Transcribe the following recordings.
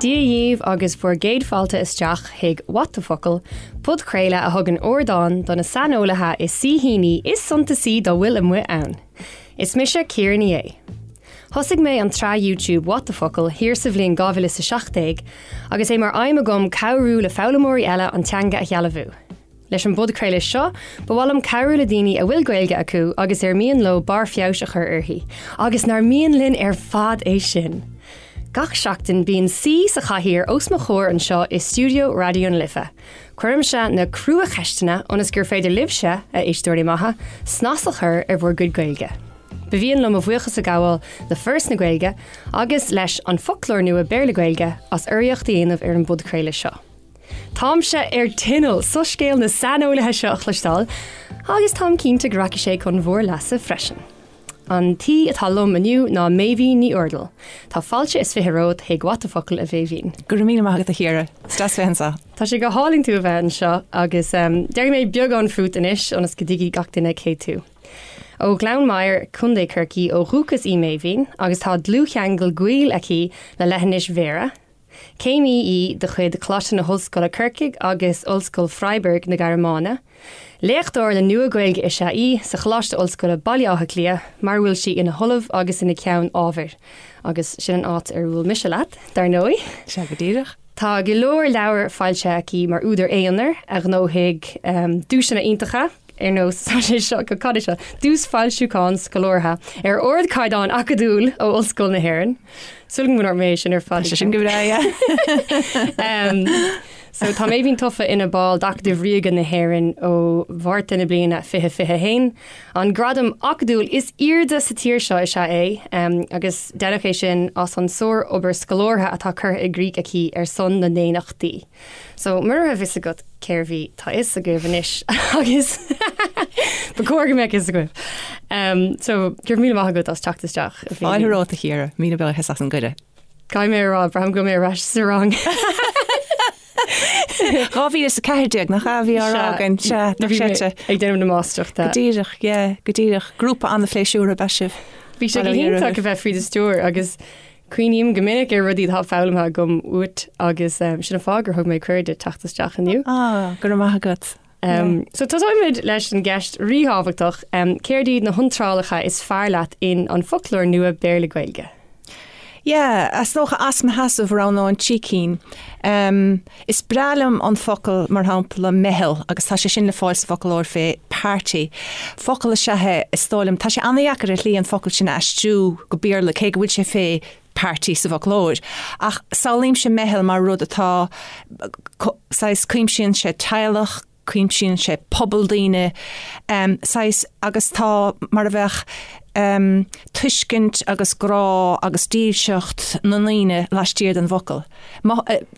Dia dhíbh agus bhur gcéad fáilte isteach chuig What the Focal, podchraoladh a thugann ardán do na saineolaithe is saoithíní is suntasaí dá bhfuil amuigh ann. Is mise Ciara Ní É. Thosaigh mé an tsraith YouTube What the Focal thiar sa bhliain 2017 agus é mar aidhm agam cabhrú le foghlaimeoirí eile an teanga a shealbhú. Leis an bpodchraoladh seo, ba mhaith liom cabhrú le daoine a bhfuil Gaeilge acu agus ar mian leo barr feabhais a chur uirthi, agus nár mian linn ar fad é sin! Gach seachtain bíonn saoi sa chathaoir os mo chomhair anseo i stiúideo Raidió na Life. Cuirimse na cruacheisteanna ionas gur féidir libhse, a éisteoirí maithe, snas a chur ar bhur gcuid Gaeilge. Ba mhian liom mo bhuíochas a ghabháil le Foras na Gaeilge agus leis An Foclóir Nua Béarla-Gaeilge as urraíocht a dhéanamh ar an bpodchraoladh seo. Táimse ar tinneall soiscéal na saineolaithe seo a chloisteáil agus táim cinnte go rachaidh sé chun bhur leasa freisin. An t-aoi atá liom inniu ná Méibhín Ní Úrdail. Tá fáilte is 20 romhat chuig What the Focal, a Mhéibhín. Go raibh míle maith agat a Chiara. Is deas bheith anseo. Tá sé go hálainn tú a bheith anseo agus déarfaidh mé beagán fút anois ionas go dtuigfidh gach duine cé tú. Ó Ghleann Maghair, Co. Chorcaí ó dhúchas í Méibhín agus tá dlúthcheangal gaoil aici le leithinis Bhéarra. Céimí í de chuid Choláiste na hOllscoile Corcaigh agus Ollscoil Freiburg na Gearmáine. Léachtóir le Nua-Ghaeilge is ea í sa Choláiste Ollscoile Baile Átha Cliath mar a bhfuil sí ina hOllamh agus ina Ceann Ábhair. Agus sin an áit ar bhuail mise leat, dar ndóigh. Sea, go díreach. Tá go leor leabhar foilsithe aici mar údar aonair a ghnóthaigh duaiseanna iontacha. ar nós tá sé seo go cad é seo Duais Foilsiúcháin Scolártha ar ardchaighdeán acadúil ó Ollscoil na hÉireann. Súil agam go ndúirt mé é sin ar fad. Tá sé sin go breá, yeah. So tá Méibhín tofa ina ball d'Acadamh Ríoga na hÉireann ó Mhárta na bliana 2021. An gradam acadúil is airde sa tír seo is ea é agus deineadh é sin as an sár-obair scolártha atá curtha i gcrích aici ar son na ndaonnachtaí. So, mura raibh fhios agat cérbh í, tá fhios agaibh anois agus ba chóir go mbeadh fhios agaibh. Um, so, go raibh míle maith agat as teacht isteach. Fáilte romhat a Chiara, míle buíochas as an gcuireadh. Caithfidh mé a rá, braithim go bhfuil mé ar ais sa rang. 2014 nach ea a bhí á rá againn, sea, nach seite. Ag déanamh na máistreachta. Go díreach, yeah, go díreach. Grúpa an-phléisiúrtha ab ea sibh. Bhí sé go hiontach a bheith faoi do stiúir agus Cuimhním go minic ar rudaí atá foghlamtha agam uait agus sin an fáth gur thug mé cuireadh duit teacht isteach inniu. Ah, go raibh maith agat. So tosóimid leis an gceist ríthábhachtach, céard iad na hiontrálacha is fearr leat in An Foclóir Nua Béarla-Gaeilge? Yeah, is dócha as mo sheasamh roghnóinn 3 cinn. Is breá liom an focal, mar shampla, meitheal, agus tá sé sin le fáil sa bhfoclóir fé party. Focal is ea é, is dóigh liom. Tá sé an-dheacair ar shlí an focal sin a aistriú go Béarla, cé go bhfuil sé fé party sa bhfoclóir. Ach samhlaímse meitheal mar rud atá, saghas, cuimsíonn sé teaghlach, cuimsíonn sé pobal daoine, saghas, agus tá mar a bheadh tuiscint agus grá agus dílseacht na ndaoine laistiar den bhfocal.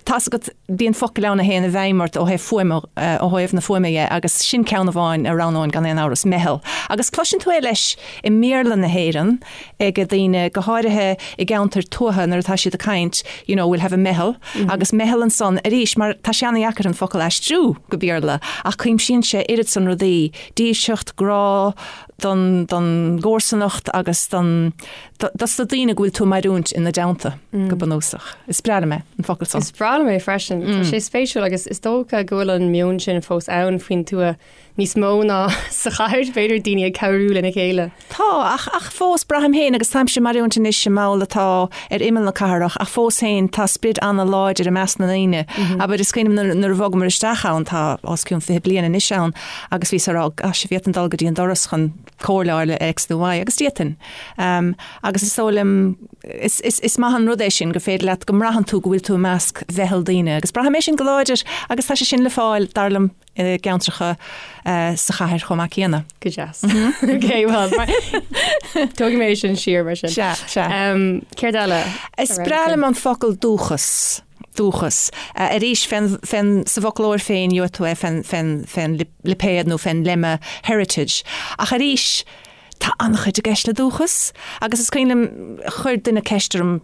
Tá's agat, bíonn focail ann a théann i bhfeidhm ort ó thaobh fuaime, ó thaobh na fuaime dhe, agus sin ceann amháin a roghnóinn gan aon amhras, meitheal. Agus cloiseann tú é leis i mBéarla na hÉireann ag daoine, go háirithe i gceantair tuaithe nuair atá siad ag caint, you know, we'll have a meitheal, agus meitheal ansan arís, mar tá sé an-dheacair an focal a aistriú go Béarla, ach cuimsíonn sé oiread san rudaí, dílseacht, grá don, don gcomharsanacht agus don, dos na daoine go bhfuil tú ag mairiúint ina dteannta, go bunúsach. Is breá liom é, an focal san. Is breá liom é freisin. Tá sé spéisiúil agus is dócha go bhfuil an meon sin fós ann faoin tuath níos mó ná sa chathair, b'fhéidir, daoine ag cabhrú lena chéile. Tá, ach, ach fós, braithim féin, agus táimse ag mairiúint anois i mball atá ar imeall na cathrach, ach fós féin, tá sprid an-láidir i measc na ndaoine. Abair, is cuimhin liom nuair a bhogamar isteach ann, tá os cionn 20 bliain anois ann, agus bhíos ag rá, gosh, an bhféadfainn dul go dtí an doras chun comhairle a fháil le X nó Y, agus d'fhéadfainn. Agus is dóigh liom, is, is, is maith an rud é sin, gur féidir leat, go mbraitheann tú go bhfuil tú i measc mheitheal daoine, agus braithim é sin go láidir, agus tá sé sin le fáil, dar liom, i gceantracha sa chathair chomh maith céanna. Go deas. Ok, well, tógfaidh mé sin siar mar sin. Sea, sea. Céard eile? Is breá liom an focal dúchas. Dúchas. Arís, fén, fén, sa bhfoclóir féin, gheobhaidh tú é fén, fén, fén lipéad nó fén lemma heritage. Ach arís, Tá an-chuid i gceist le dúchas agus is cuimhin liom, chuir duine ceist orm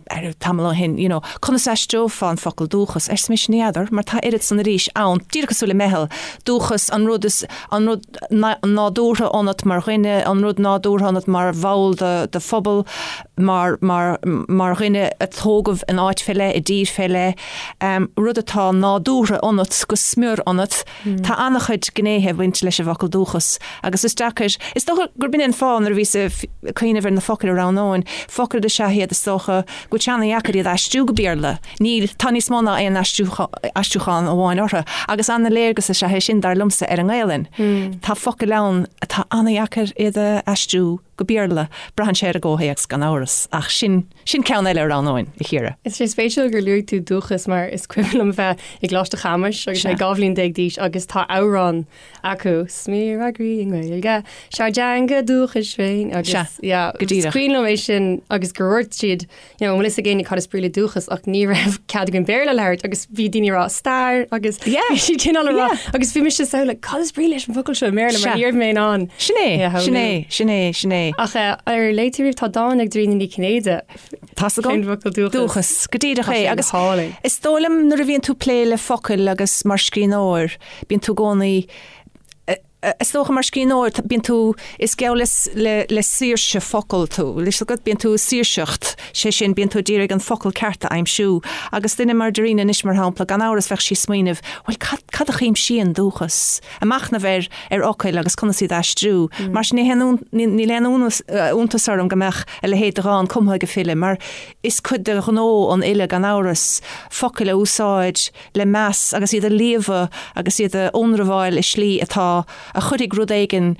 tamall ó shin, you know, conas a aistreofá an focal dúchas? Arsa mise, ní fheadar, mar tá oiread san arís ann, díreach cosúil le meitheal, dúchas, an rud is, an rud nádúrtha ionat mar dhuine, an rud nádúrtha ionat mar bhall de, de phobal. mar, mar, mar dhuine a tógadh in áit fé leith, i dtír fé leith, rud atá nádúrtha ionat, go smior ionat. Tá an-chuid gnéithe ag baint leis an bhfocal dúchas agus is deacair, is dócha gurb in é an fáth nuair a bhíos ag cuimhneamh ar na focail a roghnóinn, focail is ea iad is dócha go bhfuil sé ana-dheacair iad a aistriú go Béarla. Níl, tá níos mó ná aon aistriúchán amháin orthu agus ana-léargas is ea é sin, dar liomsa, ar an nGaelainn. Tá focail ann atá ana-dheacair iad a aistriú go Béarla. Braitheann sé ar an gcomhthéacs gan amhras, ach sin, sin ceann eile a roghnóinn, a Chiara. Is sé spéisiúil gur luaigh tú dúchas mar is cuimhin liom bheith i gColáiste Chamuis agus mé 12 bhliain d'aois agus tá amhrán acu, Smior ár gcroí i nGaeilge, 'Sár dteanga dúchais féin agus yeah, go díreach. Is cuimhin liom é sin agus gur dhúirt siad you know, an bhfuil fhios ag éinne cad is brí le dúchas ach ní raibh cead againn Béarla a labhairt agus bhí daoine ag rá stair agus Yeah. bhí siad cineál ag rá Yeah. agus bhí mise so like cad is brí leis an bhfocal seo i mBéarla mar Sea. ní raibh mé in ann Sin é, é a sin shamhlú. é, sin é, sin é. Ach eh, ar léigh tú riamh tá dán ag Dairena Ní Chinnéide Tá's agam. Faoin bhfocal dúchas. Dúchas, go díreach Tá é. sé Agus go hálainn. is dóigh liom nuair a bhíonn tú ag plé le focail agus mar scríbhneoir, bíonn tú i gcónaí Is dócha mar scríbhneoir, bíonn tú, is geall le, le, le saoirse focal tú. Bhfuil fhios agat, bíonn tú ag saoirseacht, sé sin, bíonn tú ag iarraidh an focal ceart a aimsiú. Agus duine mar Dairena anois, mar shampla, gan amhras bheadh sí ag smaoineamh, bhuel, cad, cad a chuimsíonn dúchas? Ag machnamh ar, ar fhocail agus conas iad a aistriú. Mar sin ní haon, níl aon iontas orm go mbeadh a leithéid de dhán cumtha ag file, mar is cuid de ghnó an fhile, gan amhras, focail a úsáid, le meas agus iad a líomhadh agus iad a ionramháil i slí atá, a chuirfidh rud éigin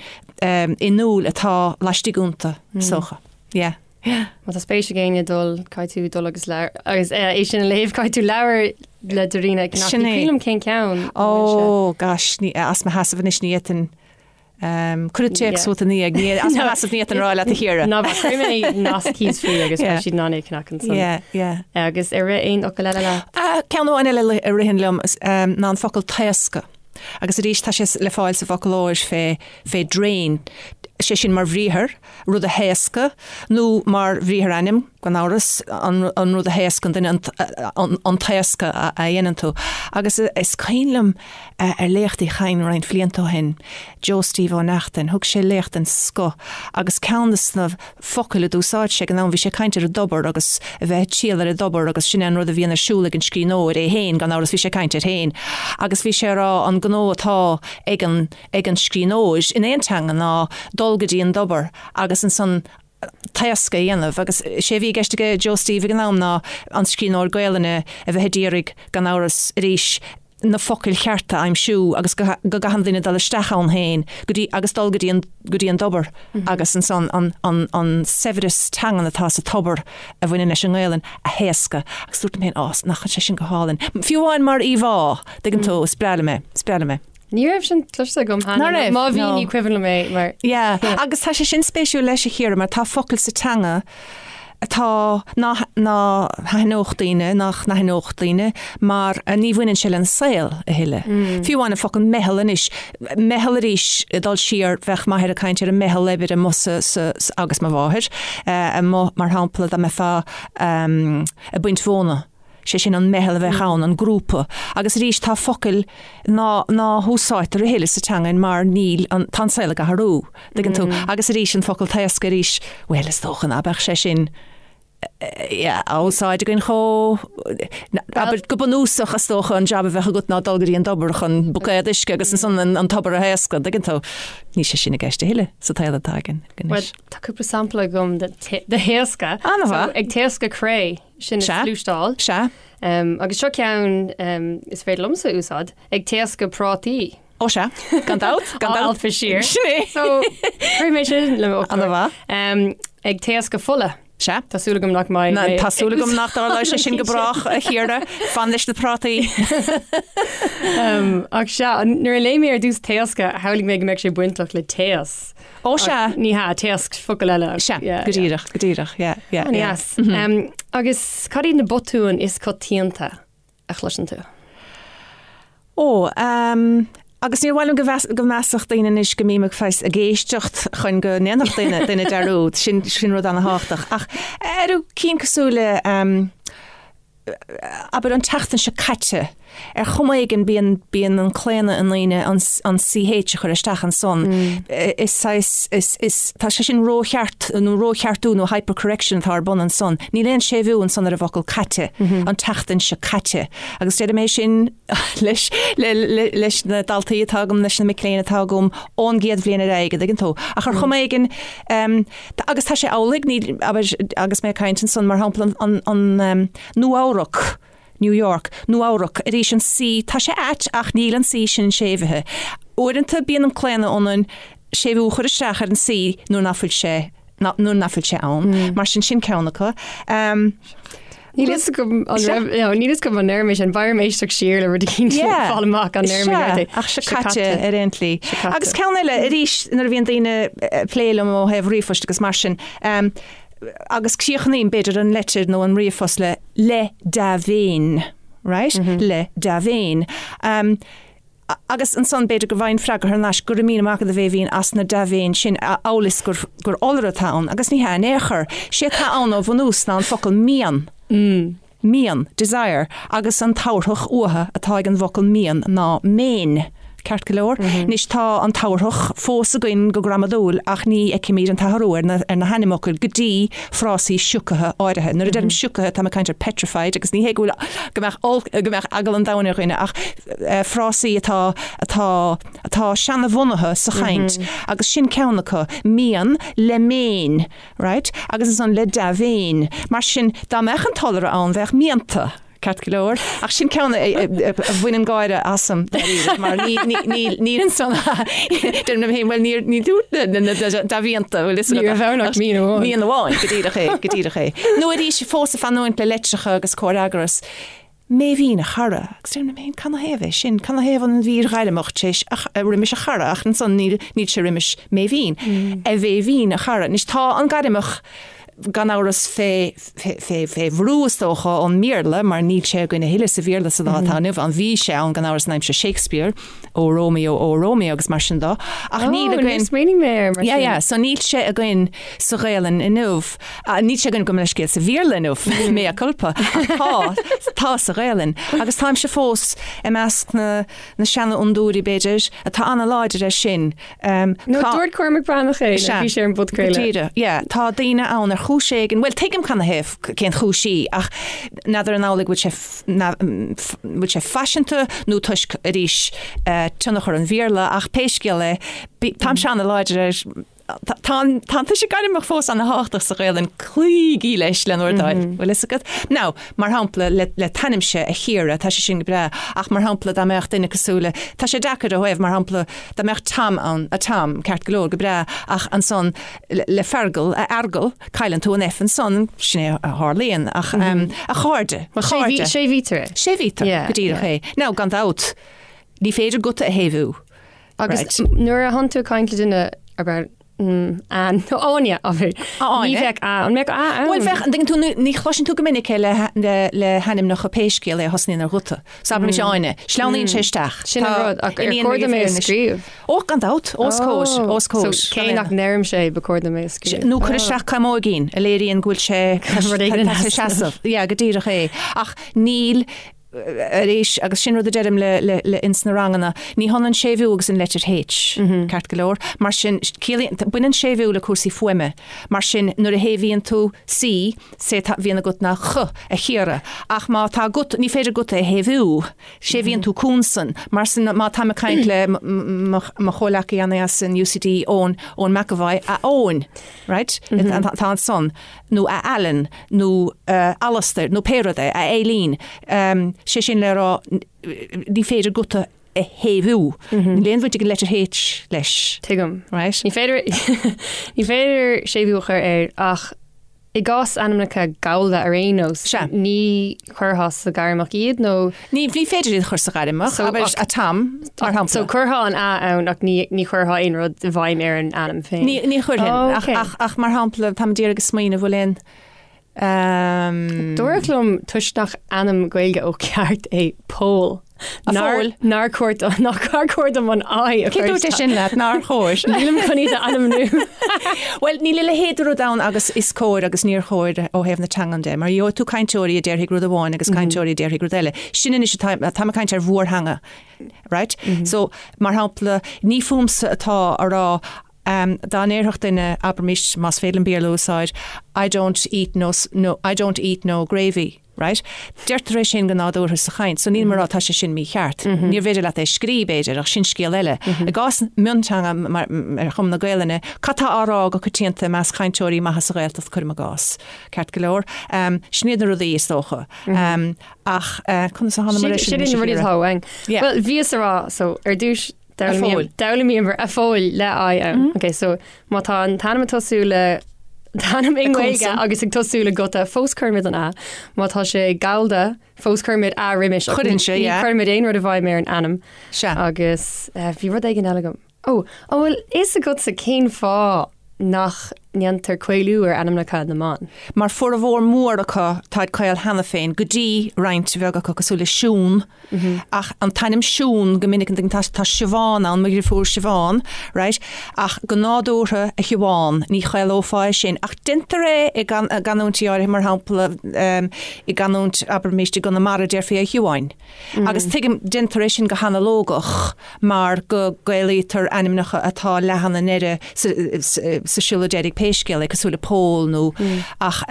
in iúl atá laistigh iontu, is dócha. Yeah. Yeah. Má tá spéis ag éinne dul, caithfidh tú dul agus leabhar, agus é sin a léamh, caithfidh tú leabhar le Dairena a cheannach. Sin Ní é. cuimhin liom cén ceann. an bhfuil sé? Ó, gosh, ní, as mo sheasamh anois ní fhéadfainn Cuir an téacs uait ina dhiaidh, ní as mo sheasamh ní fhéadfainn a rá leat a Chiara. Ná bac, cuirfidh mé nasc thíos faoi agus beidh siad in ann é a cheannach ansan. Yeah, yeah. Agus ar rith aon fhocal eile leat? Ceann amháin eile a ritheann liom ná an focal taoscadh. Agus arís tá sé le fáil sa bhfoclóir fé fé drain, sé sin mar bhriathar, rud a thaoscadh, nó mar bhriathar-ainm, gan amhras, an rud a thaoscann duine, an taoscadh a dhéanann tú. Agus is cuimhin liom ar léacht Uí Chadhain roinnt bhlianta ó shin, Joe Steve Ó Neachtain, thug sé léacht den scoth agus ceann de na focail a d'úsáid sé ag an am, bhí sé ag caint ar an dtobar agus a bheith ag triall ar an dtobar agus sin é an rud a bhíonn ar siúl ag an scríbhneoir, é féin, gan amhras, bhí sé ag caint air féin. Agus bhí sé ag rá an gnó atá ag an ag an scríbhneoir in aon teanga ná dul go dtí an dtobar agus ansan taoscadh a dhéanamh agus sé a bhí i gceist aige Joe Steve ag an am ná an scríbhneoir Gaelainne a bheith ag iarraidh, gan amhras, arís, na focail chearta a aimsiú agus go go gcaitheann duine dul isteach ann féin go dtí agus dul go dtí an go dtí an dtobar agus ansan an an an saibhreas teangan atá sa tobar a bhaineann leis an nGaelainn a thaoscadh agus dúirt liom féin, á, nach sé sin go hálainn. Fiú amháin mar íomhá, tuigeann tú, is breá liom é, is breá liom é. Ní raibh sin cloiste agam cheana. Ná raibh? Má bhí No. ní cuimhin liom é mar. Yeah, agus tá sé sin spéisiúil leis a Chiara mar tá focail sa teanga atá ná ná haithneodh daoine, nach n-aithneodh daoine mar ní bhaineann sé lena saol a thuilleadh. Fiú amháin an focal meitheal anois, meitheal arís ag dul siar bheadh m'athair ag caint ar an meitheal oibre amuigh sa sa agus mo mháthair amuigh mar shampla dá mbeifeá ag baint mhóna. sé sin an meitheal a bheadh ann, an grúpa. Agus arís tá focail ná ná húsáidtear a thuilleadh sa teangain mar níl an, tá an saol ag athrú, dtuigeann tú. Agus arís an focal taoscadh arís, bhuel is dócha ná beadh sé sin yeah, á úsáid againn chomh, abair go bunúsach is dócha an jab a bheadh agat ná dul go dtí an dtobar chun buicéad uisce agus ansan an, an tobar a thaoscadh, dtuigeann tú. Níl sé sin i gceist a thuilleadh sa tsaol atá againn anois. Tá cúpla sampla agam de thaoscadh. An-mhaith. So, ag taoscadh cré. Sin Sea. sluaisteáil. Sea. Agus seo ceann is féidir liomsa a úsáid, ag taoscadh prátaí. Ó sea, gan dabht, gan Á dabht. alpadh siar. Sin é. So, cuirfidh mé sin le mo fhoclóir. An-mhaith. Ag taoscadh fola. Sea. Tá súil agam nach mbeidh Ná, mé tá súil agam nach dtarlóidh sé sin go brách, a Chiara. Fan leis na prátaí. Ach sea, nuair a léigh mé ar dtús taoscadh, shamhlaigh mé go mbeadh sé bainteach le téas. Ó sea. Ní hea, taosc focal eile. Sea, go díreach, go díreach, yeah, yeah, yeah. An-dheas. Agus cad iad na botúin is coitianta a chloiseann tú? Ó, agus níor mhaith liom go mheas, go measfadh daoine anois go mbím ag saghas ag éisteacht chun go ndéanfadh duine, duine dearúd, sin, sin rud ana-thábhachtach. Ach ar cinn cosúil le, abair an tseachtain seo caite. Ar chuma éigin bíonn, bíonn an claonadh i ndaoine an, an CH a chur isteach ansan. Is saghas, is, is, tá sé sin rócheart nó rócheartú nó hypercorrection atá ar bun ansan. Níl aon séimhiú ansan ar an bhfocal caite, an tseachtain seo caite. Agus deirim é sin leis, le, le, leis na daltaí atá agam, leis na mic léinn atá agam ón gcéad bhliain ar aghaidh, an dtuigeann tú. Ach ar chuma éigin, agus tá sé amhlaidh, níl, abair, agus mé ag caint ansan, mar shampla an, an, an Nua-Eabhrac, New York, Nua-Eabhrac, arís an C, tá sé ait ach níl an C sin séimhithe. Uaireanta bíonn an claonadh ionainn séimhiú a chur isteach ar an C nuair nach bhfuil sé, nuair nach bhfuil sé ann. Mar sin, sin ceann acu. Níl fhios agam an raibh, no, níl fhios agam an ndeir mé sin, beidh orm éisteacht siar le rud eicínt le fáil amach an ndeir mé ceart é. Ach seo caite ar aon tslí. Agus ceann eile, arís, nuair a bhíonn daoine ag plé liom ó thaobh ríomhphoist agus mar sin, Agus críochnaím, b'fhéidir, an leitir nó an ríomhphost le le dea-mhéin, right? Le dea-mhéin. Agus ansan, b'fhéidir go bhfaighinn freagra thar n-ais, go raibh míle maith agat a Bhéibhinn as na dea-mhéin sin, amhail is gur gur iolra atá ann, agus ní hea in aon chor. Sé atá ann ó bhunús ná an focal mian. Mian, desire, agus an tabharthach uatha atá ag an bhfocal mian ná méin. Ceart go leor? Anois tá an tabharthach fós againn go gramadúil ach ní fheicimid an t-athrú ar na ar na hainmfhocail go dtí frásaí siocaithe áirithe. Nuair a deirim siocaithe táim ag caint ar petrified agus ní hé go bhfuil go mbeadh olc go mbeadh eagal an domhain ar dhuine ach frásaí atá atá atá seanabhunaithe sa chaint agus sin ceann acu, mian le méin. Right? Agus ansan le dea-mhéin. Mar sin, dá mbeadh an t-iolra ann, bheadh mianta, ceart go leor. Ach sin ceann a bhaineann gáire asam, dáiríre, mar ní, ní, ní, níl ansan, deirim liom féin, bhuel, níor, ní dúirt na, na, na dea-mhianta, bhfuil fhios agat. Ní raibh ann ach mian amháin. Mian amháin, go díreach é, go díreach é. Nó arís, fós ag fanúint le litreacha agus comhfhreagras. Méibhín, a chara, agus deirim liom féin, canathaobh é sin? Canathaobh an mhír ghairmeach tar éis roimis a chara, ach ansan níl, níl sé roimis Méibhín. A Mhéibhín, a chara. Anois tá an gairmeach gan amhras fé, fé, fé, fé bhrú is dócha ón mBéarla mar níl sé againn a thuilleadh sa Bhéarla sa lá atá inniu ann. Bhí sé ann gan amhras in aimsir Shakespeare, O Romeo, O Romeo agus mar sin dó, ach níl againn. Níor smaoinigh mé air mar sin. Yeah, yeah, so níl sé againn sa Ghaelainn inniu. Níl sé againn gabh mo leithscéal sa Bhéarla inniu, mea culpa, ach tá, tá sa Ghaelainn. Agus táimse fós i measc na, na seanfhondúirí, b'fhéidir, atá an-láidir air sin. Nó dúirt Cormac Breathnach é, Sea, bhí sé ar an bpodchraoladh. Go díreach, yeah. Tá daoine ann ar chúis éigin, bhuel tuigim canathaobh, cén chúis í, ach n'fheadar an amhlaidh go bhfuil sé, bhfuil sé faiseanta nó toisc, arís, tionchar an Bhéarla, ach pé scéal é, táimse an-láidir air, tá an tuiseal gairmeach fós an-thábhachtach sa Ghaelainn, cloígí leis le bhur dtoil, bhfuil fhios agat? Now, mar shampla, le t'ainmse, a Chiara, tá sé sin go breá, ach mar shampla, dá mbeadh duine cosúil le, tá sé deacair ó thaobh, mar shampla, dá mbeadh Tom ann, a Tom, ceart go leor, go breá, ach ansan le Feargal, a Fheargal, cailleann tú an F ansan, sin é a tharlaíonn, ach a chairde, a chairde. Séimhítear é. Séimhítear, go díreach é. Now, gan dabht, ní féidir guta a shéimhiú. Agus nuair a thánn tú ag caint le duine, abair, Ann, nó Áine, abair, ní bheadh A, an mbeadh A ann? Bhuel, bheadh, an dtuigeann tú, ní chloiseann tú go minic é le hainmneacha pé scéal é a thosnaíonn ar ghuta. So abraimis Áine, sleamhnaíonn sé isteach. Sin an rud, ach ar chóir dom é a scríobh? Ó, gan dabht, os comhair, os comhair. So cé nach ndeirimse é, ba chóir dom é a scríobh. Nó cuir isteach caimóigín a léiríonn go bhfuil sé, Rud éigin tá sé seasamh. Yeah, go díreach é. Ach níl, arís, agus sin rud a deirim le, le, le ins na ranganna, ní hionann séimhiú agus an leitir H, ceart go leor. Mar sin, ciallaíonn, baineann séimhiú le cúrsaí fuaime. Mar sin, nuair a shéimhíonn tú C, sé atá, bhíonn agat ná Ch, a Chiara. Ach má tá guta, ní féidir guta a shéimhiú. Séimhíonn tú consan. Mar sin, má táim ag caint le mo chomhleacaí as an UCD, Eoin, Eoin McEvoy, a Eoin, right? Tá ansan, nó a Alan, nó a Alastair, nó pé rud é, a Eileen. Sé sin le rá, ní féidir guta a shéimhiú. Níl aon bhaint ag an leitir H leis. Tuigim. Right? Ní féidir, ní féidir séimhiú a chur air ach I gcás ainmneacha Gallda ar aon nós, Sea. ní chuirfeá sa ghairmeach iad nó. Ní, ní féidir iad a chur sa ghairmeach, So, abair ach- a Tom, mar shampla. So chuirfeá an A ann ach ní, ní chuirfeá aon rud i bhfeidhm ar an ainm féin. Ní, ní chuirfinn, Oh, ach, ok. ach, ach mar shampla, táim d'iarraidh a smaoineamh bhfuil aon, ehm. Dúradh liom toisc nach ainm Gaeilge ó cheart é Pól. A Phóil. Nár chóir nár chóir dom an I a Cé dúirt é sin leat nár chóir? Nílim chun iad a ainmniú. Bhuel, níl a leithéid de rud ann agus is cóir agus níor chóir ó thaobh na teangan de, mar gheobhaidh tú cainteoirí a déarfaidh rud amháin agus cainteoirí a déarfaidh rud eile. Sin anois atá, táim ag caint ar mhórtheanga, right? So, mar shampla, ní fúmsa atá a rá dá ndéarfadh duine, abraimis, más féidir liom Béarla a úsáid, I don't eat no, no, I don't eat no gravy. Right? Deirtear é sin go nádúrtha sa chaint, so nílim ag rá tá sé sin mícheart. Níorbh fhéidir leat é a scrí, b'fhéidir, ach sin scéal eile. I gcás mionteanga mar ar chuma na Gaelainne, cad tá á rá go coitianta i measc cainteoirí maithe sa Ghaeltacht, cuirim i gcás. Ceart go leor. Sin iad na rudaí, is dócha. Ach conas a thánamar air sin? Sin iad na rudaí atá uainn. Bhuel, bhíos a rá, so ar dtús, D'fhoghlaimíomar a Phóil le I ann. Ok, so má tá an t-ainm ag tosú le t-ainm i nGaeilge agus ag tosú le guta, fós cuirimid an A. Má tá sé Gallda, fós cuirimid A roimis. Cuireann sé, yeah. Ní chuirimid aon rud i bhfeidhm ar an ainm. Sea. Agus bhí rud éigin eile agam. Ó, an bhfuil fhios agatsa cén fáth nach ndéantar caolú ar ainmneacha na mban? Mar formhór mór acu táid caol cheana féin, go dtí roinnt bheag acu cosúil le Siún, ach an t-ainm Siún go minic an tá tá Siobhán ann, mo dheirfiúr Siobhán, right? Ach go nádúrtha a Shiobhán, ní chaolófá é sin. Ach déantar é i gcanúintí áirithe, mar shampla i gcanúint, abraimis, i gConamara déarfaí a Shiobháin. Agus tuigim, déantar é sin go hanalógach mar go gcaolaítear ainmneacha atá leathan i ndeireadh, sa siolla deiridh pé scéal é, cosúil le Pól nó ach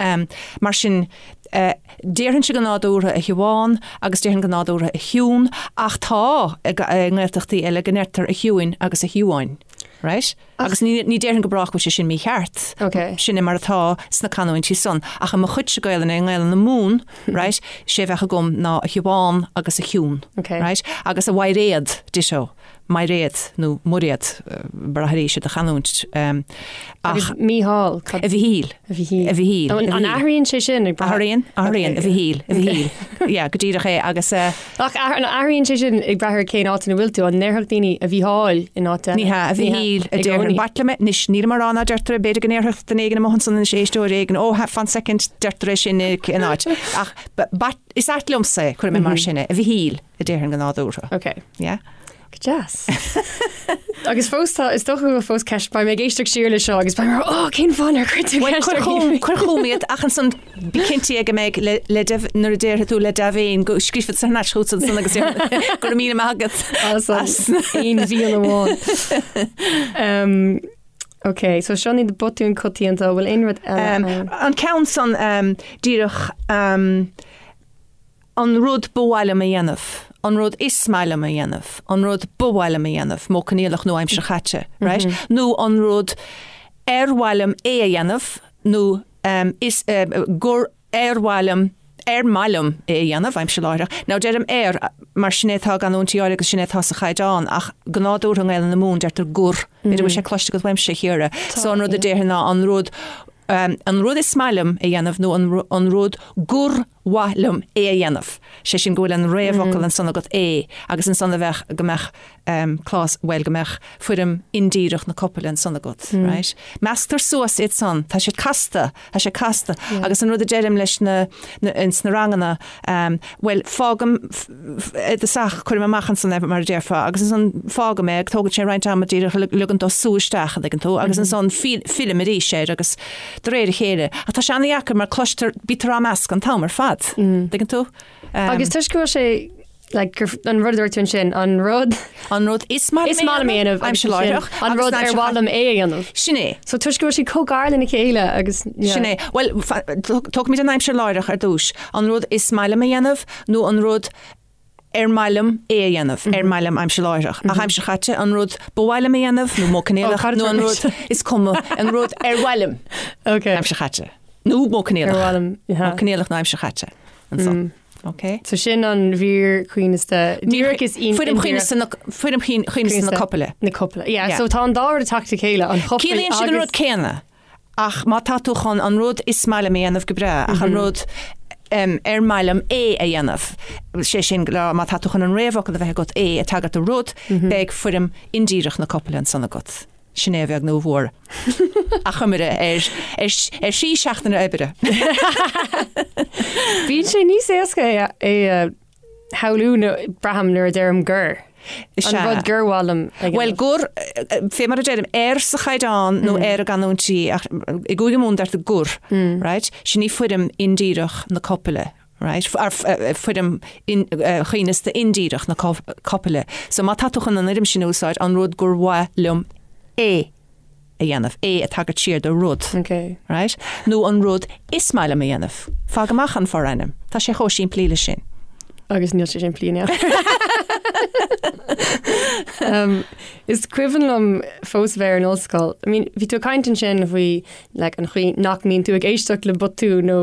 mar sin déarfainnse go nádúrtha a Shiobhán agus déarfainn go nádúrtha a Shiún ach tá i nGaeltachtaí eile go ndeirtear a Shiúin agus a Shiobháin. Right? Agus ní ní déarfainn go brách go bhfuil sé sin mícheart. Ok. Sin é mar atá sna canúintí san. Ach i mo chuidse Gaelainne, i nGaelainn na Mumhan, right, sé a bheadh agam ná a Shiobhán agus a Shiún. Ok. Right? Agus a Mhairéad, ditto. Mairéad nó Muiréad, brath arís ar do chanúint. Ach. Agus Mícheál, cad. A Mhichíl. A Mhichíl. A Mhichíl. An athraíonn sé sin ag brath? Athraíonn, athraíonn, a Mhichíl, a Mhichíl. Yeah, go díreach é agus. Ach an athraíonn sé sin ag brath ar cén áit ina bhfuil tú? An ndéarfadh daoine a Mhícheáil in áit eile? Ní hea, a Mhichíl a déarfainn. B'ait liom é, anois, nílim á rá ná deirtear é, b'fhéidir go ndéarfadh duine éigin amuigh ansan anois, éisteoir éigin, ó, fan soicind, deirtear é sin in áit. Ach b'ait, is ait liomsa é, cuirfidh mé mar sin é, a Mhichíl a déarfainn go nádúrtha. Ok. Yeah? Go deas. Agus fós tá, is dócha go bhfuil fós ceist, beidh mé ag éisteacht siar le seo agus beidh mé, ó, cén fáth nár chuir tú ceist ar Cuir cuir chugam iad ach ansan bí cinnte go mbeidh le le deimh nuair a déarfaidh tú le dea-mhéin go scríobhfad thar n-ais chugat ansan agus go raibh míle maith agat as aon mhian amháin. Um, ok, so seo iad na botúin coitianta, bhfuil aon rud eile ann? An ceann san um, díreach um, An rud ba mhaith liom a dhéanamh, an rud is maith liom a dhéanamh, an rud ba mhaith liom a dhéanamh, modh coinníollach nó aimsir chaite, right? Nó an rud ar mhaith liom é a dhéanamh nó is gur ar mhaith liom, ar maith liom é a dhéanamh, aimsir láithreach. Now deirim ar mar sin é atá i gcanúintí áirithe agus sin é atá sa chaighdeán ach go nádúrtha i nGaelainn na Mumhan deirtear gur. B'fhéidir go bhfuil sé cloiste agat uaimse, a Chiara. So an rud a déarfainn ná an rud, an rud is maith liom a dhéanamh nó an rud gur mhaith liom é a dhéanamh, sé sin go bhfuil an réamhfhocal ansan agat é agus ansan a bheadh, go mbeadh clás, bhuel go mbeadh foirm indíreach na copaile ansan agat, right? Measctar suas iad san, tá siad casta, tá sé casta agus an rud a deirim leis na, ins na ranganna, bhuel fágaim i dtosach, cuirim amach ansan é mar a déarfá agus ansan fágaim é, tógann sé roinnt ama díreach ligean dó sú isteach, an dtuigeann tú, agus ansan fillim arís air agus de réir a chéile. Ach tá sé an-dheacair mar cloistear, bítear á meascadh an t-am ar fad. Tuigeann tú? Agus toisc go bhfuil sé, like, gur, an rud a dúirt tú ansin, an rud. An rud is maith liom a dhéanamh, aimsir láithreach, an rud ar mhaith liom é a dhéanamh. Sin é. So toisc go bhfuil siad chomh gar lena chéile agus, yeah. Sin é. Bhuel, tógfaimid an aimsir láithreach ar dtús. An rud is maith liom a dhéanamh nó an rud ar maith liom é a dhéanamh, ar maith liom aimsir láithreach. Ach aimsir chaite, an rud ba mhaith liom a dhéanamh, nó modh coinníollach, nó an rud is cuma, an rud ar mhaith liom, aimsir chaite. Nó modh coinníollach. Ar mhaith liom, yeah. Modh coinníollach nó aimsir chaite. Ansan. Ok. So sin an mhír choibhneasta. Díreach is Foirm choibhneasta na, foirm choibhneasta na copaile. Na copaile. Yeah, so tá an dá rud ag teacht le chéile, an chopail Ciallaíonn siad an rud céanna. Ach má tá tú chun an rud is maith liom a dhéanamh go breá, ach an rud ar maith liom é a dhéanamh, sé sin go má tá tú chun an réamhfhocal a bheith agat é ag tagairt do rud, beidh foirm indíreach na copaile ansan agat. Sin é a bheag nó a mhór. Achoimre ar ar thrí seachtaine oibre. Bíonn sé níos éasca é a. shamhlú nó braithim nuair a deirim gur. Is An ea. rud gur mhaith liom a Bhuel, dhéanamh. gur, fé mar a deirim, ar sa chaighdeán nó ar i gcanúintí, ach i gCúige Mumhan deirtear gur, right? Sin í foirm indíreach na copaile, right? Ar foirm choibhneasta indíreach na copaile. So má tá tú chun an fhoirm sin a úsáid, an rud gur mhaith liom é a dhéanamh, é ag tagairt siar do rud, Ok. right? Nó an rud is maith liom a dhéanamh. Fág amach an forainm. Tá sé chomh simplí le sin. Agus níl sé simplí in aon chor. Um, is cuimhin liom fós bheith ar an ollscoil. I mean, bhí tú ag caint ansin faoi like, an chaoi nach mbíonn tú ag éisteacht le botúin nó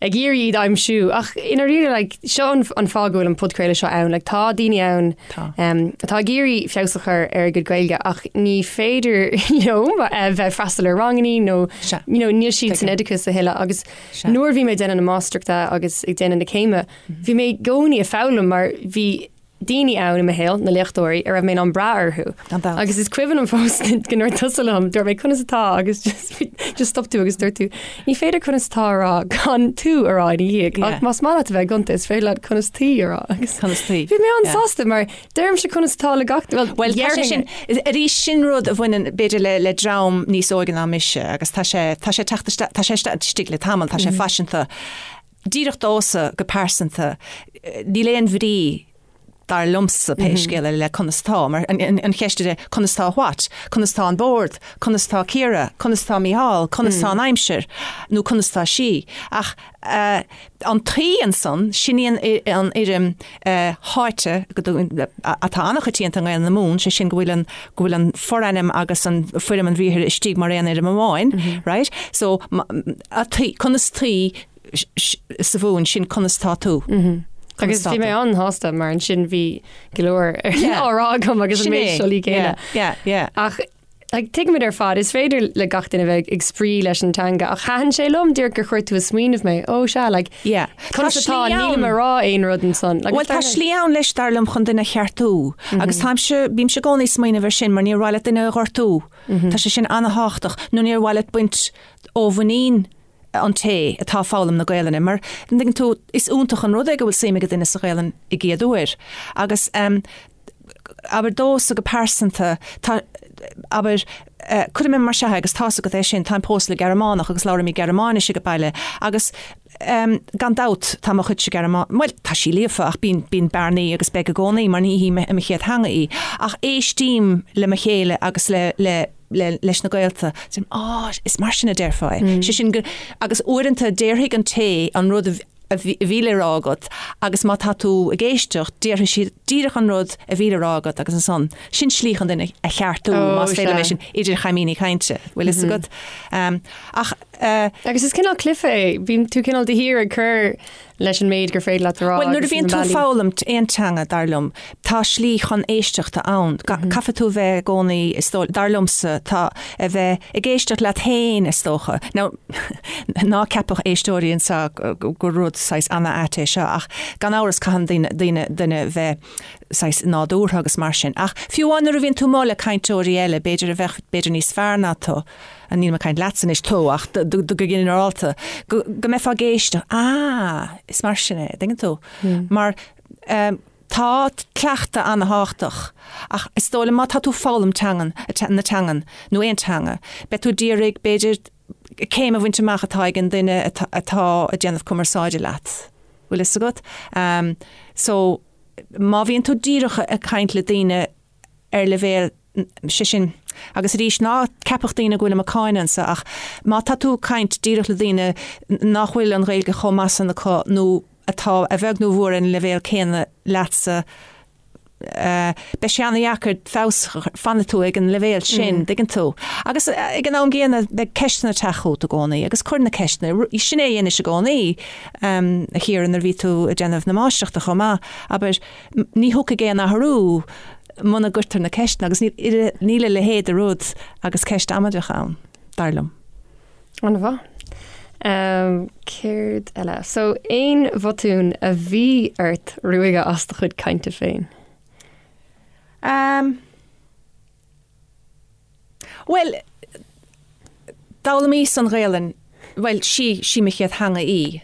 ag iarraidh iad a aimsiú ach i ndáiríre like, seo an, an fáth go bhfuil an podchraoladh seo ann. Like, tá daoine ann Tá. um, atá ag iarraidh feabhas a chur ar a gcuid Gaeilge ach ní féidir leo eh, bheith ag freastal ar rangannaí nó Sea. you know, níl siad san Tuigim. oideachas a thuilleadh agus Sea. nuair a bhí mé ag déanamh na máistreachta agus ag déanamh na céime, bhí mé i gcónaí ag foghlaim mar bhí daoine ann i mo shaol, na léachtóirí, a raibh mé in ann brath orthu. Gan dabht. Agus is cuimhin liom fós go ndúirt tusa liom, dúirt mé conas atá agus just, just stop tú agus dúirt tú, ní féidir conas atá a rá gan tú a rá ina dhiaidh, Yeah. ach más maith leat a bheith gonta is féidir leat conas taoi a rá. Agus Conas taoi. Bhí mé Yeah. an-sásta mar deirimse conas atá le gach well, Well, tá sé dhéarfainn sin, arís sin rud a bhaineann b'fhéidir le, le dream níos óige ná mise agus tá sé, tá sé ag teacht isteach, tá sé istigh le tamall, tá sé faiseanta. Díreach domhsa go pearsanta, níl aon bhrí dar liomsa pé scéal é le conas tá, mar an cheist é conas tá what? Conas tá an bord? Conas tá Ciara? Conas tá Mícheál? Conas tá an aimsir? Nó conas tá sí? Ach an taoi ansan, sin í an fhoirm tháite atá an-choitianta i nGaelainn na Mumhan, sé sin go bhfuil an go bhfuil an forainm agus an foirm an bhriathair istigh mar aon fhoirm amháin, right? So, a taoi, conas taoi sa Mhumhain, sin conas tá tú. Agus bhí mé an-shásta mar ansin bhí go leor á rá agam agus an méid siollaí céanna. Yeah, yeah. Ach like, tuigimid ar fad, is féidir le gach duine bheith ag spraoi leis an teanga ach thaitin sé liom díreach gur chuir tú ag smaoineamh mé, ó sea, like, Yeah. conas atá, nílim ag rá aon rud ansan. Like, Bhuel tá slí ann leis dar liom chun duine a cheartú agus táimse, bímse i gcónaí ag smaoineamh ar sin mar níor mhaith leat duine a ghortú. Tá sé sin an-thábhachtach nó níor mhaith leat baint ó mhuinín an té atá ag foghlaim na Gaelainne, mar, an dtuigeann tú, is iontach an rud é go bhfuil suim ag duine sa Ghaelainn i gcéad uair. Agus, abair, domhsa go pearsanta, tá, abair, cuirfidh mé mar seo é agus tá's agat é sin, táim pósta le Gearmánach agus labhraímid Gearmáinis ag baile agus, gan dabht, tá mo chuidse Gearmá-, bhuel, tá sí líofa ach bíonn, bíonn bearnaí agus beidh i gcónaí mar ní hí mo chéad theanga í. Ach éistím le mo chéile agus le, le, le, leis na gaolta, deirim, á, is mar sin a déarfá é. Sé sin go, agus uaireanta déarfaidh an té an rud a a bhí le rá agat agus má tá tú ag éisteacht, déarfaidh siad díreach an rud a bhí le rá agat agus ansan, sin slí chun duine a cheartú, más féidir liom é sin, idir chaimíní cainte, bhfuil fhios agat. Ach. Agus is cineál cluiche é, bíonn tú cineál de shíor ag cur leis an méid gur féidir leat a rá. Bhuel, nuair a bhíonn tú ag foghlaim aon teanga, dar liom, tá slí chun éisteachta ann. Caithfidh tú a bheith i gcónaí, is dóigh, dar liomsa, tá, a bheith ag éisteacht leat féin, is dócha. Now, ná ceapadh éisteoirí anseo gur rud saghas ana-ait é seo, ach gan amhras caitheann daoine, daoine, duine bheith saghas nádúrtha agus mar sin. Ach fiú amháin nuair a bhíonn tú amuigh le cainteoirí eile, b'fhéidir a bheadh, b'fhéidir níos fearr ná tú, nílim ag caint leatsa anois, tú, ach go ginearálta, go mbeifeá ag éisteacht, ah, is mar sin é, dtuigeann tú? Mar tá cleachtadh an-thábhachtach, ach is dóigh liom má tá tú ag foghlaim teangan, na teangan, nó aon teanga, beidh tú d'iarraidh, b'fhéidir, céim a bhaint amach atá ag an duine atá ag déanamh cumarsáide leat. Bhfuil fhios agat? So, má bhíonn tú díreach ag caint le daoine ar leibhéal, sé sin, agus arís, ná ceapadh daoine go bhfuilim ag cáineadh anso, ach má tá tú ag caint díreach le daoine nach bhfuil an Ghaeilge chomh maith san acu nó atá a bheag nó a mhór ar an leibhéal céanna leatsa, beidh sé an-dheacair feabhas, fanfaidh tú ag an leibhéal sin, dtuigeann tú. Agus ag an am gcéanna, beidh ceisteanna ag teacht chugat i gcónaí agus cuir na ceisteanna, sin é a dheinis i gcónaí, a Chiara, nuair a bhí tú ag déanamh na máistreachta chomh maith, abair, ní thiocfaidh aon athrú muna gcuirtear na ceisteanna agus níl a leithéid de rud agus ceist amaideach ann, dar liom. An-mhaith. Céard eile? So, aon bhotún a bhí ort ruaigeadh as do chuid cainte féin? Bhuel, d'fhoghlaimíos an Ghaelainn, bhuel, sí, sí mo chéad theanga í.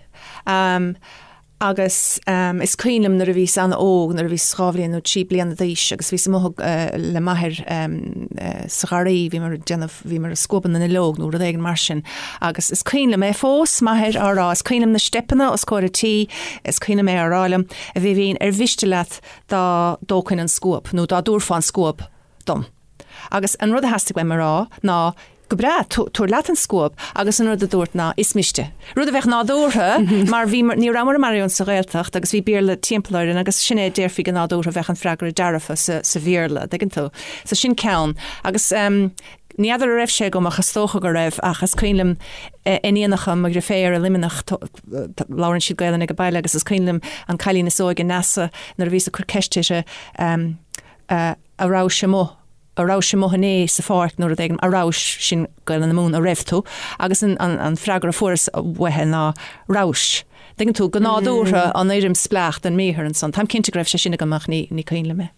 Agus is cuimhin liom nuair a bhíos an-óg, nuair a bhíos 2 bhliain nó 3 bliana d'aois agus bhíos amuigh le m'athair sa gharraí, bhíomar ag déanamh, bhíomar ag scuabadh na nduilleog nó rud éigin mar sin agus is cuimhin liom é fós, m'athair á rá, is cuimhin liom na steipeanna os comhair an tí, is cuimhin liom é á rá liom, a Bhibín, ar mhiste leat dá dtógfainn an scuab nó dá dtabharfá an scuab dom? Agus an rud a theastaigh uaim a rá ná, Go breá, tabhair leat an scuab, agus an rud a dúirt ná, Is miste. Rud a bheadh nádúrtha, mar bhí, ní rabhamar i maraon sa Ghaeltacht agus bhí Béarla timpeall orainn agus sin é a déarfaí go nádúrtha, bheadh an freagra dearfa sa, sa Bhéarla, an dtuigeann tú. So sin ceann. Agus ní fheadar a raibh sé agam ach is dócha go raibh ach is cuimhin liom iníonacha mo dheirféar i Luimneach, labhrann siad Gaelainn ag baile agus is cuimhin liom an cailín is óige, Neasa, nuair a bhíos ag cur ceist uirthi, a rabhais amuigh, a rabhais amuigh inné sa pháirc nó rud éigin, a rabhais, sin Gaelainn na Mumhan, a raibh tú, agus an, an, an freagra a fuaireas uaithi ná rabhais. Tuigeann tú, go nádúrtha an fhoirm spleách den mbriathar ansan. Táim cinnte go raibh sé sin agam ach ní, ní cuimhin liom é.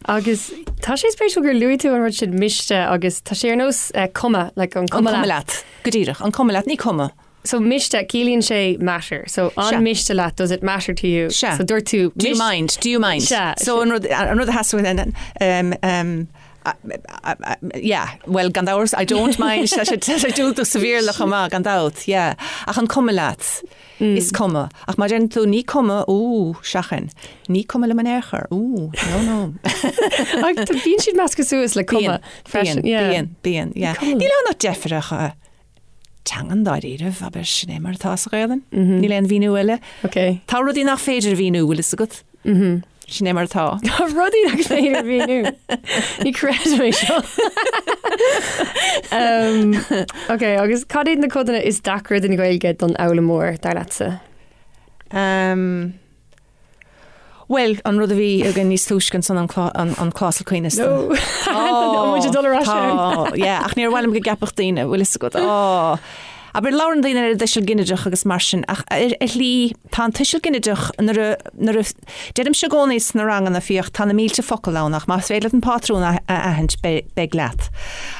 Agus tá sé spéisiúil gur luaigh tú an rud sin miste agus tá sé ar nós eh, cuma, like an cuma leat. An cuma leat. Go díreach, an cuma leat, ní cuma. So miste, ciallaíonn sé matter. So an miste leat, does it matter to you? Sea. So dúirt tú Do you mind? Do you mind? Sea. So an rud, an rud a theastaigh um, um, yeah, well gan dabht, I don't mind, tá sé tá sé diúltach sa Bhéarla chomh maith, gan dabht, yeah. Ach an cuma leat? Is cuma. Ach má deireann tú ní cuma, ú, seachain. Ní cuma liom in aon chor, ú, no, no. Ach bíonn siad measctha suas le cuma freisin. Bíonn, bíonn, bíonn, yeah. Níl ann ach deifir ach teangan dáiríribh, abair, sin é mar atá sa Ghaelainn. Níl aon mhíniú eile. Ok. Tá rudaí nach féidir a mhíniú, bhfuil fhios agat? Sin é mar atá. Tá rudaí nach féidir a mhíniú. Ní chreidim é seo. um, ok, agus cad iad na codanna is deacra den Ghaeilge don fhoghlaimeoir, dar leatsa? Um, Bhuel, an rud a bhí againn níos túisce ansan an an clásal coibhneasta. No. Tá muid ag dul ar ais ann. Tá, yeah, ach níor mhaith liom go gceapfadh daoine, bhfuil fhios agat, á. Abair, labhrann daoine ar an dtuiseal ginideach agus mar sin, ach ar ar shlí, tá an tuiseal ginideach nuair a, nuair a, deirimse i gcónaí sna ranganna, féach, tá na mílte focal ann ach más féidir leat an pátrún a a aithint, beidh, beidh leat.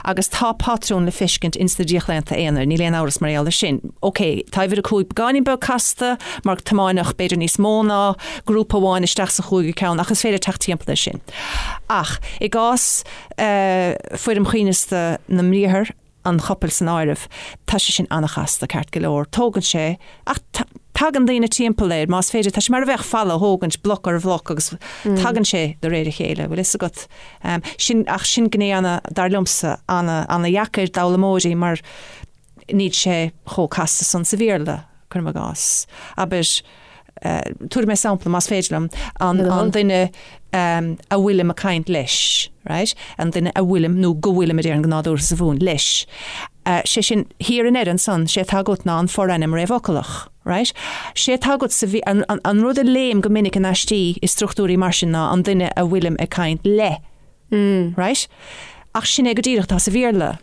Agus tá pátrún le feiscint ins na díochlaonta aonair, níl aon amhras mar gheall air sin. Ok, tá uimhir a 5 beagáinín beag casta, mar tiomáineadh b'fhéidir níos mó ná grúpa amháin isteach sa chúigiú ceann ach is féidir teacht timpeall air sin. Ach i gcás foirm choibhneasta na mbriathar, an chopail san áireamh, tá sé sin an-chasta, ceart go leor. Tógann sé, ach tagann daoine timpeall air, más féidir. Tá sé mar a bheadh falla a thógaint, bloc ar bhloc agus tagann sé de réir a chéile, bhfuil fhios agat. Sin, ach sin gné ana, dar liomsa, ana, ana-dheacair d'fhoghlaimeoirí mar, Níl sé chomh casta san sa Bhéarla, cuirim i gcás. Abair, tabharfaidh mé sampla, más féidir liom, an, an duine a bhfuilim ag caint leis, right? An duine a bhfuilim, nó go bhfuilim a déarfainn go nádúrtha sa Mhumhain, leis. Sé sin, thiar i ndeireadh ansan, sé atá agat ná an forainm réamhfhocalach, right? Sé atá agat sa, an, an, an rud a léim go minic in aistí i struchtúirí mar sin ná an duine a bhfuilim ag caint le, right? Ach sin é go díreach atá sa Bhéarla.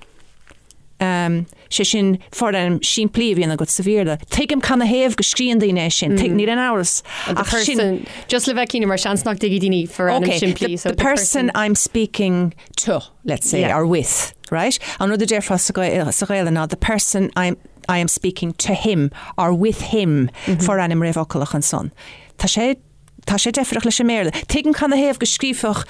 Sé sin forainm simplí a bhíonn agat sa Bhéarla. Tuigim canathaobh go scríonn daoine é sin, tuig, níl aon amhras. The Ach sin. person, just le bheith cinnte, mar seans nach dtuigfidh daoine forainm Okay, simplí, the, so the person I'm speaking to, let's say, Yeah. or with, right? An rud a déarfá sa Ghael- sa Ghaelainn ná the person I'm, I am speaking to him or with him, forainm réamhfhocalach ansan. Tá sé Tá sé deifreach leis an mBéarla. Tuigim canathaobh go scríobhfadh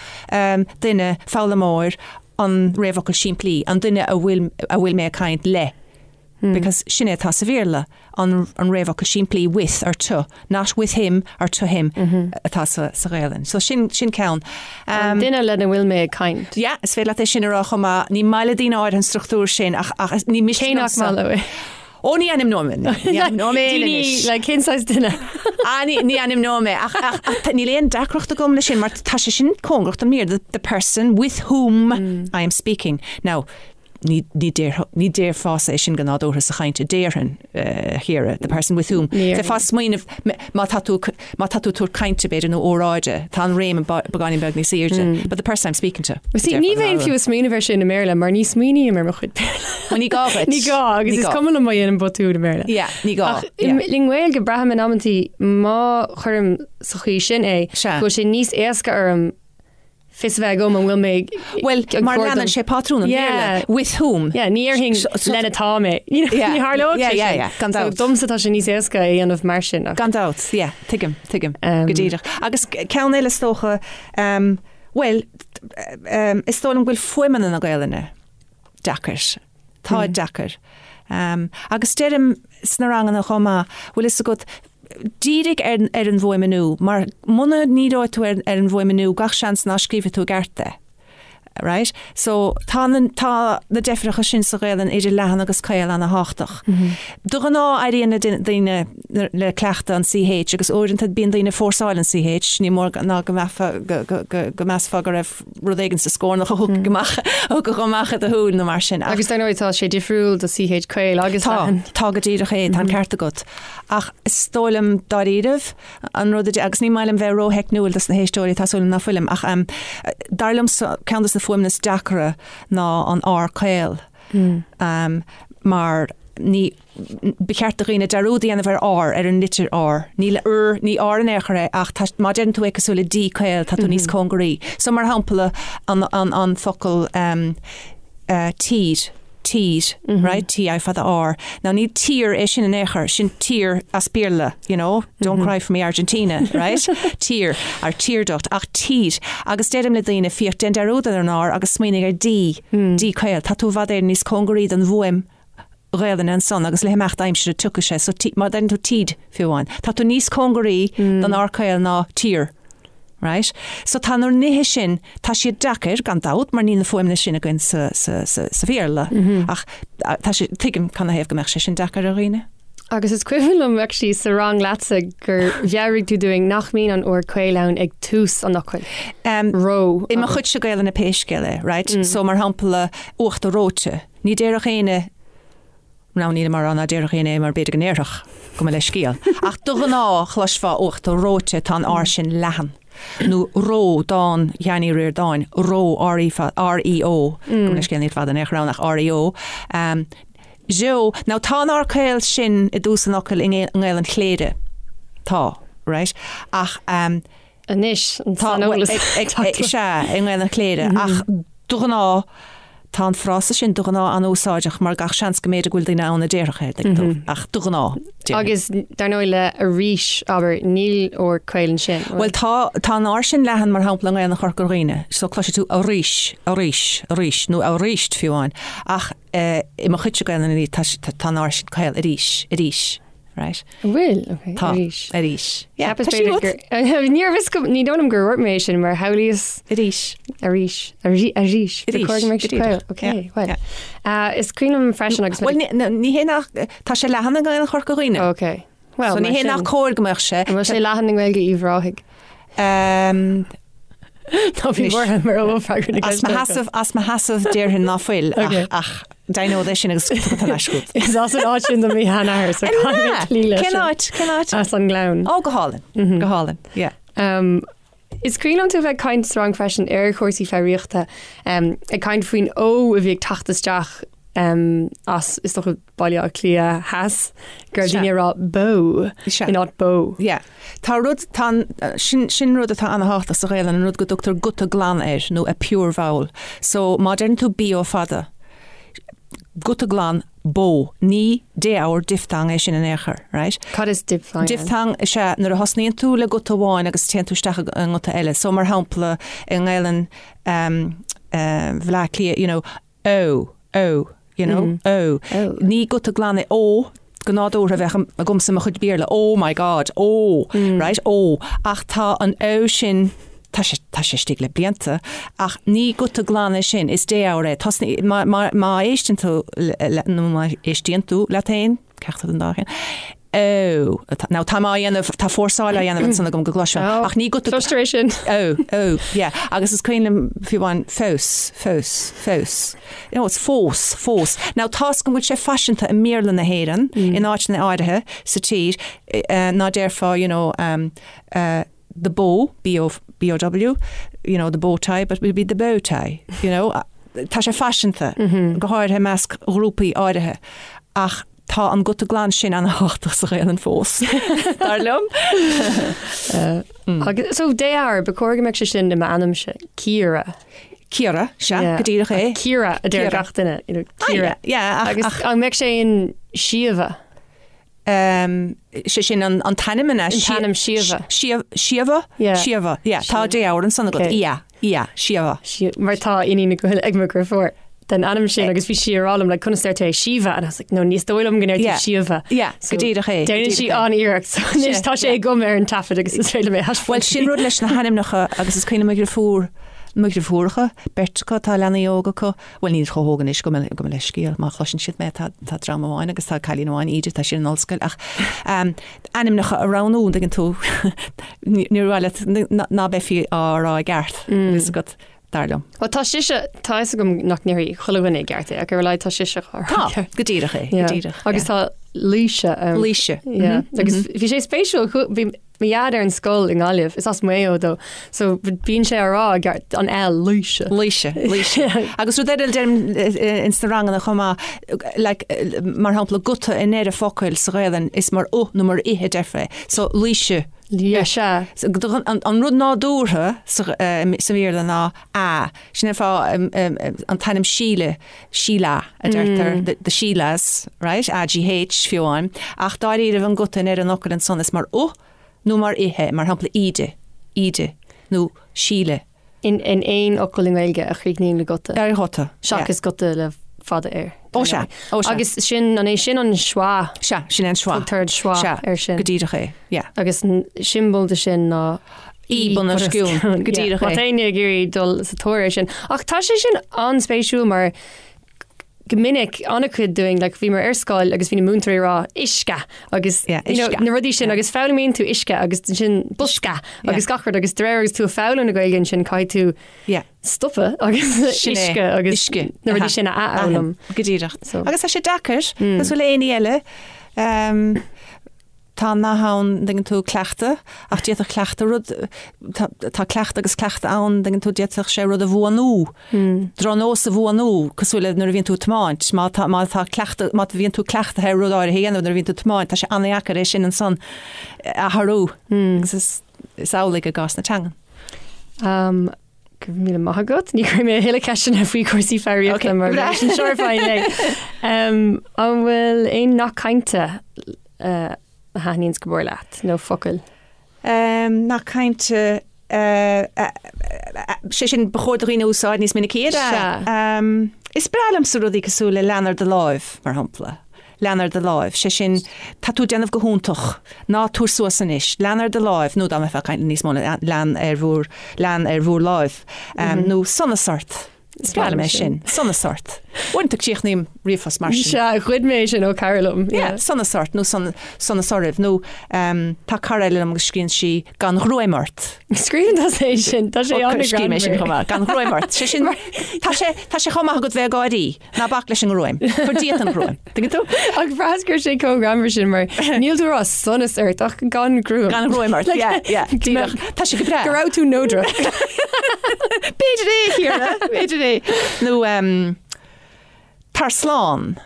duine, foghlaimeoir, an réamhfhocal simplí, an duine a bhfuil, a bhfuil mé ag caint le. Because sin é atá sa Bhéarla, an, an réamhfhocal simplí with or to, not with him or to him atá sa, sa Ghaelainn. So sin, sin ceann. An duine lena bhfuil mé ag caint. Yeah, is féidir leat é sin a rá chomh maith. Ní maith le daoine áirithe an struchtúr sin ach, ach ní miste Cé nach liomsa. maith leo é? Ó ní ainmneoidh mé, ní ainmneoidh mé Daoine, anois. like, cén saghas duine? Ah, ní, ní ainmneoidh mé, ach, ach, ach tá- níl aon deacracht agam leis sin, mar tá sé sin cóngarach don mBéarla, the, the person with whom I am speaking. Now, ní, ní, déarfá, ní déarfása é sin go nádúrtha sa chaint, déarfainn, eh, a Chiara, the person with whom. Ní Bheifeá ag smaoineamh, m- má tá tú, má tá tú ag tabhairt cainte, b'fhéidir, nó óráide, tá an réim beagáinín beag níos airde, but the person I'm speaking to. See, ní bheinn fiú ag smaoineamh air sin i mBéarla, mar ní smaoiním ar mo chuid Béarla. Well, ní gá duit. Ní gá, agus Ní is gá. cuma liom má dhéanaim botún i mBéarla. Yeah, ní gá. Ach i nGaeilge, braithim in amantaí má chuirim sa chaoi sin é, Sea. go bhfuil sé níos éasca orm. fios a bheith agam an bhfuil mé Bhuel, mar leanann sé pátrún an Bhéarla, with whom. Yeah, ní déarfainn lena tá mé. Ní tharlódh sé sin. Gan dabht. Domsa tá sé níos éasca a dhéanamh mar sin. Gan dabht, yeah, tuigim, tuigim, go díreach. Agus ceann eile is dócha, bhuel, is dóigh liom go bhfuil fuaimeanna na Gaelainne deacair. Tá deacair. Agus deirim sna ranganna chomh maith, bhfuil fhios agat, dírigh ar ar an bhfuaimniú, mar muna ndíreoidh tú ar ar an bhfuaimniú, gach seans ná scríobhfaidh tú i gceart é. Right? So, tá na tá na deifreacha sin sa Ghaelainn idir leathan agus caol ana-thábhachtach. De ghnáth éiríonn le daoine le cleachtadh an CH agus uaireanta bíonn daoine ag fórsáil an CH, ní mór ná go mbeifeá go go go go measfá go raibh rud éigin sa scornach a thiocfadh amach, a thiocfadh amach i do shúil nó mar sin. Agus dar ndóigh tá sé difriúil do CH caol agus Tá, leathan. tá go díreach é, tá an ceart agat. Ach is dóigh liom dáiríribh an rud a, agus ní maith liom bheith rótheicniúil dos na héisteoirí, tá súil agam ná fuilim, ach dar liomsa ceann dos na fuaimeanna is deacra ná an R caol. Mar ní, Ba cheart do dhaoine dearúd a dhéanamh ar R, ar an litir R. Ní R, ní R in aon chor é, ach tá, má deireann tú é cosúil le D caol, tá tú níos cóngaraí. So, mar shampla, an, an, an focal ehm, eh, tír, tír, right, T I fada R. Now, ní tír é sin in aon chor, sin tear as Béarla, you know, don't cry for me Argentina, right, tear, or tear duct, ach tír. Agus deirim le daoine, féach, déan dearúd ar an R agus smaoinigh ar D, D caol. Tá tú i bhfad Éireann níos cóngaraí don bhfuaim Ghaelainne ansan agus le himeacht aimsire tiocfaidh sé so má deireann tú tíd fiú amháin tá tú níos cóngaraí don R caol ná tír. Right? So tá na nithe sin, tá siad deacair gan dabht mar níl na fuaimeanna sin againn sa, sa, sa, sa Bhéarla ach tá sé, tuigim canathaobh go mbeadh sé sin deacair ar dhaoine. Agus is cuimhin liom actually sa rang leatsa gur mheabhraigh tú dúinn nach mbíonn an R caol ann ag tús an fhocail. Um, Ró. I mo chuidse Gaelainne pé scéal é, right? So mar shampla uachtar reoite. Ní déarfadh éinne, now nílim á rá ná déarfadh éinne é mar b'fhéidir go ndéarfadh, gabh mo leithscéal. Ach de ghnáth, chloisfeá uachtar reoite, tá an R sin leathan. Nó ró, dán Sheáin Uí Ríordáin, ró, R-E, R-E-O, gabh mo leithscéal níl fada in aon chor ann ach R-E-O. Zeo, now tá an R caol sin i dtús an fhocail i nGaelainn Chléire. Tá, right? Ach, Anois, an saineolas. Sea, i nGaelainn Chléire, ach de ghnáth, tá an frása sin de ghnáth an-úsáideach mar gach seans go mb'fhéidir go bhfuil daoine ann a déarfadh é, tuigeann tú, ach de ghnáth, déarfainn. Agus dar ndóigh le arís, abair, níl R caol ansin. Bhuel tá, tá an R sin leathan mar shampla i nGaelainn Chorca Dhuibhne, so cloisfidh tú arís, arís, arís, nó aríst fiú amháin, ach i mo chuidse Gaelainne tá, tá an R sin caol, arís, arís. Right. An bhfuil? Ok, Tá. arís. Arís. Yeah, Cheapas tá sí b'fhéidir agat. gur- Níorbh fhios go- ní dóigh liom gur dhúirt mé é sin mar shamhlaíos Arís. arís. Arís. Arís. Arís. Ba chóir go mbeadh sé Go díreach. caol. Ok, Yeah, well. yeah. Uh, is cuimhin liom freisin agus Well, ní, ní ní hé nach, tá sé leathan i nGaelainn Chorca Dhuibhne. Ok. Well, So ní mar hé nach sin. cóir go mbeadh sé. An bhfuil sé leathan i nGaeilge Uíbh Ráthaigh? Um, Tá bhí buartha mar ó freagra na As mo ceiste. sheasamh, as mo sheasamh déarfainn ná fuil ach, Ok. ach deimhneod é sin agus tugadh an ais chugat. Is as an áit sin do mo sheanathair, so caithfidh mé cloí leis Cén sin. áit? Cén áit? As an nGleann. Ó, go hálainn. Go hálainn. Yeah. Um, is cuimhin liom tú bheith ag caint sa rang freisin ar chúrsaí foghraíochta, um, ag caint faoin O a bhí ag teacht isteach um, as is dócha Baile Átha Cliath Theas, go raibh daoine ag rá bó Sea. in áit bó. Yeah. Tá rud, tá an, sin, sin rud atá ana-thábhachtach sa Ghaelainn, an rud go dtugtar guta glan air, nó a pure vowel. So, má deireann tú B O fada, guta glan, bó, ní défhoghar, diphthong é sin in aon chor, right? Cad is diphthong ann? Diphthong is ea nuair a thosnaíonn tú le guta amháin agus téann tú isteach i nguta eile. So, mar shampla, i nGaelainn, um, uh, Bhaile Átha Cliath, you know, ó, ó, you know, ó. Ní guta glan é ó, go nádúrtha bheadh agamsa i mo chuid Béarla, oh my God, ó, right, ó. Ach tá an ó sin, tá sé, tá sé istigh le blianta, ach ní guta glan é sin, is défhoghar é. Tosnaí, má, má, má éisteann tú le, nó má éistíonn tú leat féin, ceachtar den dá cheann, Ó, now tá mé á dhéanamh, tá fórsáil á dhéanamh ansan agam go gcloisfeá, ach ní guta. Cloistear é sin. Ó, ó, yeah. Agus is cuimhin liom fiú amháin fós, fós, fós. You know, it's fós, fós. Now tá's agam go bhfuil sé faiseanta i mBéarla na hÉireann, in áiteanna áirithe sa tír, ná déarfá, you know, um, uh, the bow, B-O, B-O-W, you know, the bow tie, but it would be the bow tie, you know. Tá sé faiseanta, go háirithe i measc ghrúpaí áirithe. Ach. Tá an guta glan sin an-thábhachtach sa Ghaelainn fós, dar liom. Agus so déathair, ba chóir go mbeadh sé sin i m'ainmse, Ciara. Ciara, sea, go díreach é. Ciara a deir gach duine, you know, Ciara. Yeah, ach, Agus an mbeadh sé in Síomha? Sé sin an t-ainm an ea? An t-ainm Síomha. Síomha? Síomha, yeah. Tá déabhar ansan agat. Yeah, yeah, Síomha. Mar tá iníon ag mo dheirfiúr den ainm sin agus bhí sí ag rá liom like conas deir tú é Síomha and I was like no ní is dóigh liom go ndeir tú Síomha. Yeah, go díreach é. Déanann sí an-iarracht so anois tá sé agam ar an taifead agus is féidir liom é a thaispeáint. Bhuel sin rud leis na hainmneacha agus is cuimhin liom mo dheirfiúr, mo dheirfiúracha, beirt acu, tá leanaí óga acu, Bhuel, níl chomh hóg anois, gabh mo leithscéal, má chloiseann siad mé, tá dream amháin agus tá cailín amháin, Íde, tá sí in ollscoil, ach ainmneacha a roghnú, an dtuigeann tú, níor mhaith leat ná beifí á rá i gceart, fhios agat, dar liom. Bhuel, tá sise, tá fhios agam nach ndéarfaidh chuile dhuine i gceart é, ach ar a laghad tá sise á rá i gceart. Tá, go díreach é, go díreach. Agus tá Laoise ann. Laoise. Yeah. Agus bhí sé spéisiúil, bhí Mo dhaid ar an scoil i nGaillimh, is as Maigh Eo dó, so bíonn sé á rá i gceart, an L, Laoise. Laoise, Laoise. Agus rud eile a deirim ins na ranganna chomh maith, like, mar shampla, guta i ndeireadh focail sa Ghaelainn, is mar u nó mar i a deirfeá é. So, Laoise. Yeah, sea. An rud nádúrtha sa Bhéarla ná a. Sin an fáth an t-ainm Síle, Sheila a deirtear, the Sheilas, right, A-G-H fiú amháin, ach dáiríribh an guta i ndeireadh an fhocail ansan is mar u nó mar i é, mar shampla Íde, Íde, nó Síle. In aon fhocal i nGaeilge a chríochnaíonn le guta. Ar ghuta, yeah. Seachas guta le fada air. Ó sea, ó sea. Agus sin, an é sin an schwa? Sea, sin é an schwa. Tugtar an schwa ar sin. Go díreach é, yeah. Agus siombail de sin ná í bun os cionn, go díreach é. Má tá éinne ag iarraidh dul sa tóir air sin. Ach tá sé sin an-spéisiúil mar go minic an-chuid dúinn, like, bhíomar ar scoil agus bhí na múinteoirí ag rá uisce agus yeah, you know, na rudaí sin agus foghlaimíonn tú uisce agus sin bosca agus gach rud agus de réir agus tú ag foghlaim na Gaeilge ansin caithfidh tú yeah. stopadh agus uisce agus uisce. na rudaí sin a athfhoghlaim. Go díreach. So. Agus tá sé deacair, mm. cosúil le aon ní eile. Um, Tá an nath ann, an dtuigeann tú, cleachtadh, ach d'fhéadfadh cleachtadh rud, tá, tá cleachtadh agus cleachtadh ann, an dtuigeann tú, d'fhéadfadh sé rud a bhuanú, drochnós a bhuanú, cosúil le nuair a bhíonn tú ag tiomáint, má tá, má tá cleachtadh, má bhíonn tú cleachtaithe ar rud áirithe a dhéanamh nuair a bhíonn tú ag tiomáint, tá sé an-dheacair é sin ansan a athrú. Agus is, is amhlaidh i gcás na teangan. Um, Go raibh míle maith agat. Ní chuirfidh mé a thuilleadh ceisteanna faoi chúrsaí foghraíochta mar sin seo ar fáil é. An bhfuil aon nath cainte a thaitníonns go mór leat nó focail? Nath cainte sé sin ba chóir do dhaoine a úsáid níos minicí. Sea. Is breá liomsa rudaí cosúil le lean ar do láimh, mar shampla. Lean ar do láimh, sé sin, tá tú ag déanamh go hiontach, ná tabhair suas anois, lean ar do láimh, nó dá mbeifeá ag caint níos mó, lean ar bhur, lean ar bhur láimh, nó sonas ort. Is breá liom é sin, sonas ort. Uaireanta críochnaím ríomhphost mar sin. Sea, ghoid mé é sin ó cara liom. Yeah, sonas ort, nó sonas oraibh, nó tá cara eile liom agus scríobhann sí gan ghruaim ort. Scríobhann tusa é sin, tá sé an-ghreannmhar. Scríobhaim é sin chomh maith, gan ghruaim ort. Sé sin, tá sé, tá sé chomh maith agat bheith ag gáirí. Ná bac leis an ngruaim. Cuir díot an ghruaim. Tuigeann tú? Ach bhraitheas go raibh sé chomh greannmhar sin mar níl tú ag rá sonas ort ach gan gruaim. Gan ghruaim ort, yeah, yeah. Díreach. Tá sé go breá. Go raibh tú neodrach. B'fhéidir é, Ciara, b'fhéidir é. Nó um, tar slán.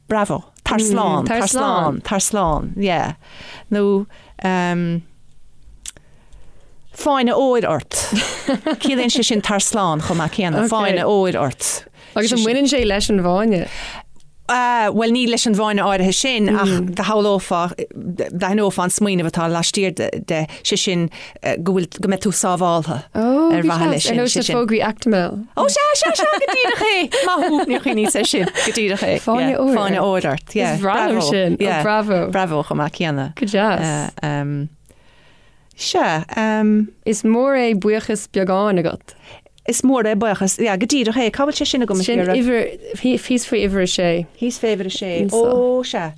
Bravo. Tar slán, tar slán, tar slán, yeah. Nó um, fáinne óir ort. Ciallaíonn sé sin tar slán chomh maith céanna. Fáinne óir ort. Agus an mbaineann sé leis an bhfáinne? Bhuel, ní leis an bhfáinne áirithe sin, ach do shamhlófá, d'aithneofá an smaoineamh atá laistiar de, sé sin go bhfuil, go mbeidh tú sábháltha ar mhaithe leis sin. Ar nós na fógraí Actimel. Ó sea, sea, sea, go díreach é! Maith thú, níor chuimhníos air sin, go díreach é. Fáinne óir. Fáinne óir ort, yeah. Is breá liom sin, ó bravo. Bravo chomh maith céanna. Go deas. Sea. Is mór é buíochas beagáin agat. Is mór é buíochas, yeah, go díreach é. Cá bhfuil sé sin agam a Sin uimhir, thíos faoi uimhir a sé. Thíos faoi uimhir a sé. Ó, sea.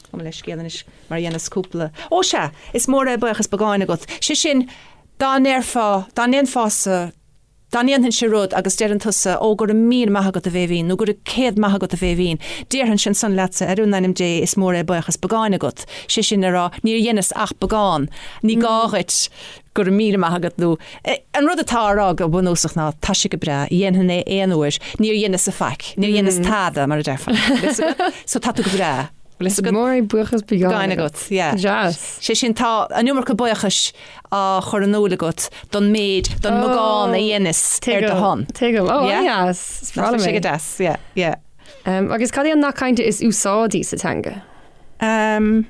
Gabh mo leithscéal anois mar a dhéanas cúpla. Ó, sea. Is mór é buíochas beagáin agat. Sé sin, dá ndéarfá, dá ndéanfása, Dá ndéanfainnse rud agus deireann tusa, Ó, go raibh míle maith agat, a Bhéibhinn, nó go raibh céad maith agat, a Bhéibhinn, déarfainnse ansan leatsa, Ar in ainm Dé, is mór é buíochas beagáin agat, sé sin le rá, níor dheineas ach beagán, ní gá dhuit go raibh míle maith agat nó. An rud atá á rá go bunúsach ná, tá sé go breá, dhéanfainn é aon uair, níor dheineas-sa faic, níor dheineas tada, mar a déarfá. So tá tú go breá. Bhfuil fhios agat? Mór é buíochas beagáin agat. Yeah. Deas. Sé sin, tá an iomarca buíochais á chur in iúl agat don méid, don mbeagán a dheineas ar do shon. Tuigim. Ó, Yeah. deas. Is breá liom Sé go é. deas, yeah, yeah. Um, agus cad é an nath cainte is úsáidí sa teanga? Um,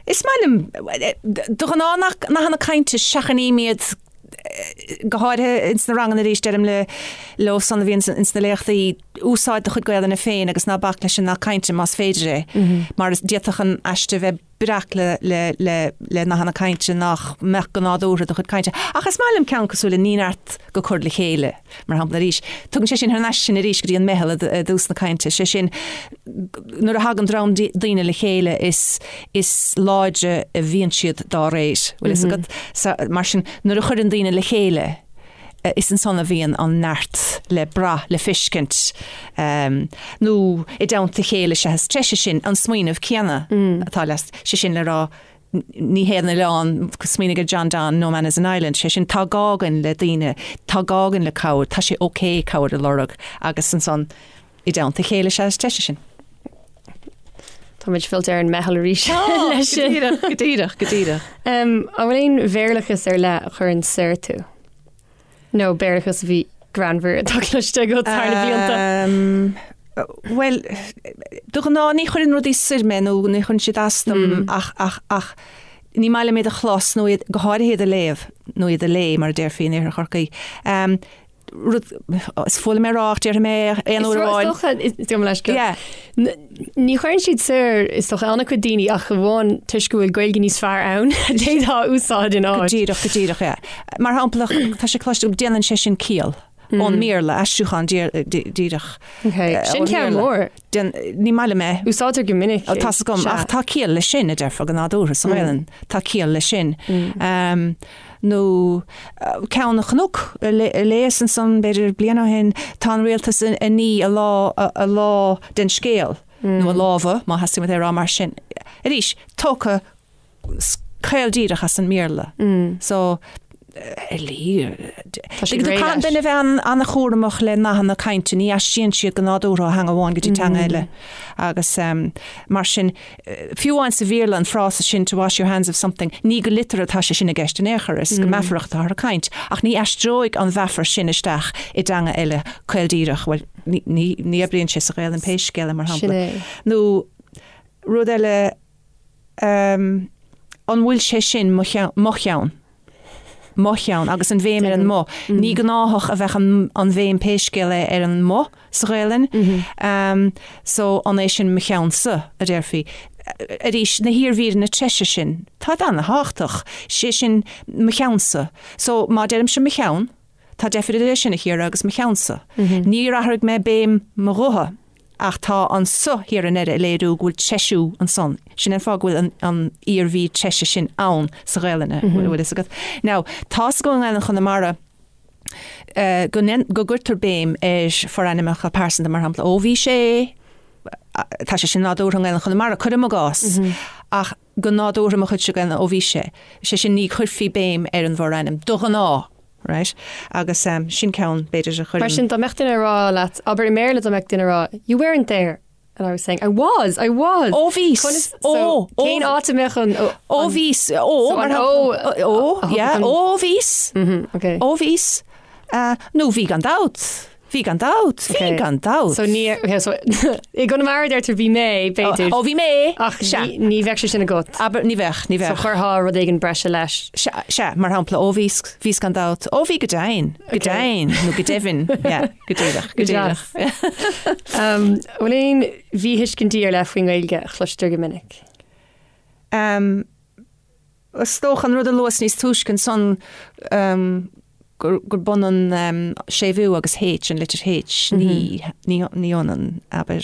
is maith liom, de ghnáth nathanna cainte seachnaím iad go háirithe ins na ranganna arís deirim le leo san a bhíonn ins na léachtaí, úsáid do chuid Gaelainne féin agus ná bac leis an nath cainte más féidir é, mar d'fhéadfadh an aiste bheith breac le le le le nathanna cainte nach mbeadh go nádúrtha i do chuid cainte. Ach is maith liom ceann cosúil le ní neart go cur le chéile, mar shampla arís. Tugann sé sin thar n-ais sinn arís go dtí an meitheal i dtús na cainte, sé sin nuair a thagann dream daoine le chéile is is láidre a bhíonn siad dá réir, bhfuil fhios agat? So, mar sin, nuair a chuireann daoine le chéile, is ansan a bhíonn an neart le brath, le feiscint, nó i dteannta a chéile is ea is treise sin, an smaoineamh céanna atá le, sé sin le rá, ní haon oileán, smaoinigh ar John Donne, no man is an island, sé sin, tá gá againn le daoine, tá gá againn le cabhair, tá sé ok cabhair a lorg agus ansan i dteannta a chéile is ea is treise sinn. Táimid fillte ar an meitheal arís leis sin. Go díreach, go díreach, go díreach. An bhfuil aon Bhéarlachas ar leith a chuireann soir tú? Nó Béarlachas a bhí greannmhar atá cloiste agat thar na blianta? Bhuel, de ghnáth ní chuireann rudaí soir mé nó ní chuireann siad as dom ach, ach, ach ní maith liom iad a chlos nó iad, go háirithe iad a léamh nó iad a lé mar a déarfaí in Iarthar Chorcaí. Rud, is fuath liom é a rá ach déarfaidh mé é aon uair amháin. Is dócha, is dóigh leis go. Yeah. Ní chuireann siad soir, is dócha, an-chuid daoine ach amháin toisc go bhfuil Gaeilge níos fearr ann a d'fhéadfá a úsáid ina áit. Go díreach, go díreach, yeah. Mar shampla, tá sé cloiste agam, déanann sé sin ciall ón mBéarla, aistriúchán díreach. Okay. Sin ceann mór. Ní maith liom é. Úsáidtear go minic. Tá 's agam, ach tá ciall leis sin, a déarfá go nádúrtha sa Ghaelainn. Tá ciall leis sin. Nó ceann a chonac, a léas ansan b'fhéidir bliain ó shin, tá an rialtas ag ní a lá, a lá den scéal, nó a lámha, má theastaíonn uait é a rá mar sin. Arís, tógtha caol díreach as an mBéarla. So, ar Caithfidh duine a bheith an-chúramach le nathanna cainte, ní aistríonn siad go nádúrtha ó theanga amháin go dtí teanga eile. Agus mar sin, fiú amháin sa Bhéarla an frása sin to wash your hands of something, ní go liteartha atá sé sin i gceist in aon chor, is go meafarach atáthar ag caint. Ach ní aistreoidh an mheafar sin isteach i dteanga eile caol díreach, bhuel, ní oibríonn sé sa Ghaelainn pé scéal é, mar shampla. Nó rud eile, an bhfuil sé sin mo cheann? Mo cheann, agus an bhéim ar an mo. Ní gnáthach a bheadh an bhéim pé scéal é ar an mo sa Ghaelainn. So, an é sin mo cheannsa, a déarfaí. Arís, na hiarmhíreanna treise sin, táid ana-thábhachtach. Sé sin mo cheannsa. So, má deirimse mo cheann, Tá deifir idir é sin, a Chiara, agus mo cheannsa. Níor athraigh mé béim mo ghutha, ach tá an sa thiar i ndeireadh ag léiriú go bhfuil treisiú ansan. Sin an fáth go bhfuil an iarmhír treise sin ann sa Ghaelainn, an bhfuil fhios agat. Now, tá's agam i nGaelainn Chonamara go go gcuirtear béim ar forainmneacha pearsanta, mar shampla, ó bhí sé, tá sé sin nádúrtha i nGaelainn Chonamara, cuirim i gcás, ach go nádúrtha mo chuidse Gaelainne, ó bhí sé, sé sin ní chuirfí béim ar an bhforainm, de ghnáth, right? Agus sin ceann, b'fhéidir, a chuireann. Mar sin, dá mbeadh duine ag rá leat, abair i mBéarla dá mbeadh duine ag rá, you weren't there, and I was saying, I was, I was! Ó bhíos! Conas, so, Ó, ó, cén áit a mbeadh an, ó, Ó bhíos, ó, so mar an shampla, ó, ó, a yeah, thugann- ó bhíos, Mhm, okay. ó bhíos, nó bhí gan dabht. Bhí gan dabht, bhí gan dabht. So ní, okay, so i gConamara deirtear bhí mé, b'fhéidir. Ó, bhí mé! Ach Sea. ní, ní bheadh sé sin agat. Abair, ní bheadh, ní So bheadh. chuirfeá rud éigin breise leis. Sea, sea, mar shampla, ó bhíos, bhíos gan dabht, ó bhí go deimhin, go Okay. deimhin, nó go deimhin, yeah, go díreach, go Go díreach. deas. Um, bhfuil aon mhíthuiscintí ar leith faoin nGaeilge a chloistear go minic? Um, Is dócha an rud a luas níos túisce ansan gurb ionann séimhiú agus H, an litir H, ní hionann, abair.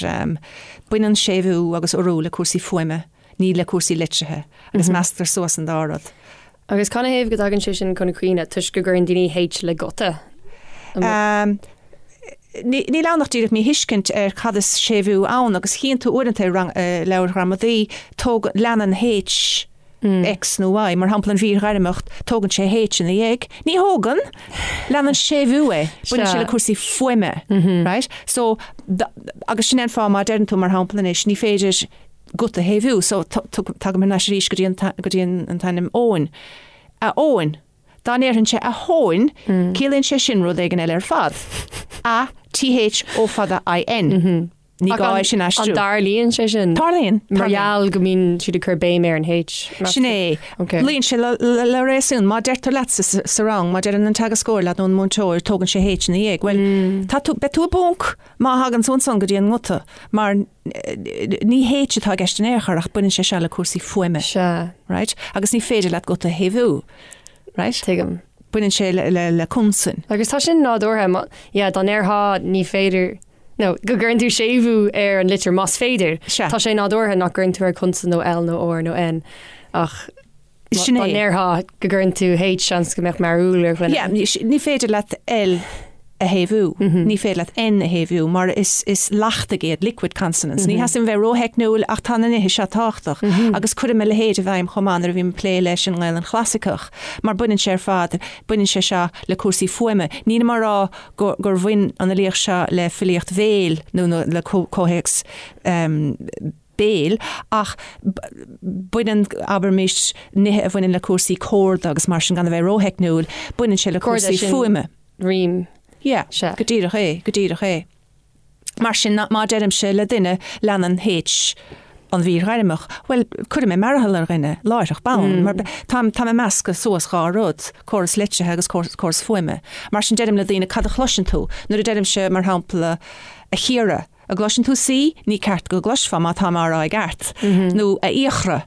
Baineann séimhiú agus urú le cúrsaí fuaime, ní le cúrsaí litrithe, agus measctar suas an dá rud. Agus canathaobh go dtagann sé sin chun cuimhne? Toisc go gcuireann daoine H le guta? Níl ann ach díreach míthuiscint ar cad is séimhiú ann, agus chíonn tú uaireanta i leabhair ghramadaí, tóg, leanann H X nó Y, mar shampla an mhír ghairmeach, tógann sé H ina dhiaidh. Ní thógann! Leanann séimhiú é. Baineann sé le cúrsaí fuaime, right? So, agus sin é an fáth má deireann tú, mar shampla anois, ní féidir. guta a shéimhiú. So tagaim thar n-ais arís go dtí an go dtí an t-ainm Eoin. A Eoin. Dá ndéarfainnse a Thóin, ciallaíonn sé sin rud éigin eile ar fad. A, T H O fada I N. Ní gá é sin a aistriú. An dtarlaíonn sé sin? Tarlaíonn. Mar gheall go mbíonn siad ag cur béim ar an H. Sin é. Luíonn sé le réasún. Má deirtear leat sa rang, má deireann an teagascóir leat nó an múinteoir, tógann sé H ina dhiaidh. Bhuel, tá tú, beidh tú i bponc má thagann tú ansan go dtí an nguta, mar ní H atá i gceist in aon chor ach baineann sé seo le cúrsaí fuaime. Sea. Right? Agus ní féidir leat guta a shéimhiú. Right? Tuigim. Baineann sé le consain. Agus tá sin nádúrtha. Yeah, dá ndéarfá ní féidir. nó go gcuireann tú séimhiú ar an litir más féidir. Sea. Tá sé nádúrtha nach gcuireann tú ar consan nó L nó R nó N ach Sin dá é. ndéarfá go gcuireann tú H seans go mbeadh mearúil ar dhuine. Yeah, ní féidir leat L a shéimhiú, ní féidir leat N a shéimhiú mar is is leachtaigh iad, liquid consonants. Ní theastaíonn bheith rótheicniúil ach tá na nithe seo tábhachtach agus cuirim a leithéid i bhfeidhm chomh maith nuair a bhím ag plé leis an nGaelainn Chlasaiceach mar baineann sé ar fad, baineann sé seo le cúrsaí fuaime. Nílim á rá gur bhain an fhilíocht seo le filíocht bhéil nó le comhthéacs béil ach baineann, abraimis, nithe a bhaineann le cúrsaí córda agus mar sin, gan a bheith rótheicniúil, baineann sé le cúrsaí fuaime. Rím. Yeah, go díreach é, go díreach é. Mar sin, má deirimse le duine, leanann H an mhír ghairmeach, bhuel, cuirfidh mé mearathal ar dhuine, láithreach bonn, mar táim, táim ag meascadh suas dhá rud, córas litrithe agus córas fuaime. Mar sin, deirim le daoine, cad a chloiseann tú? Nuair a deirimse, mar shampla, a Chiara, an gcloiseann tú C? Ní ceart go gcloisfeá má táim á rá i gceart. Nó a Fhiachra,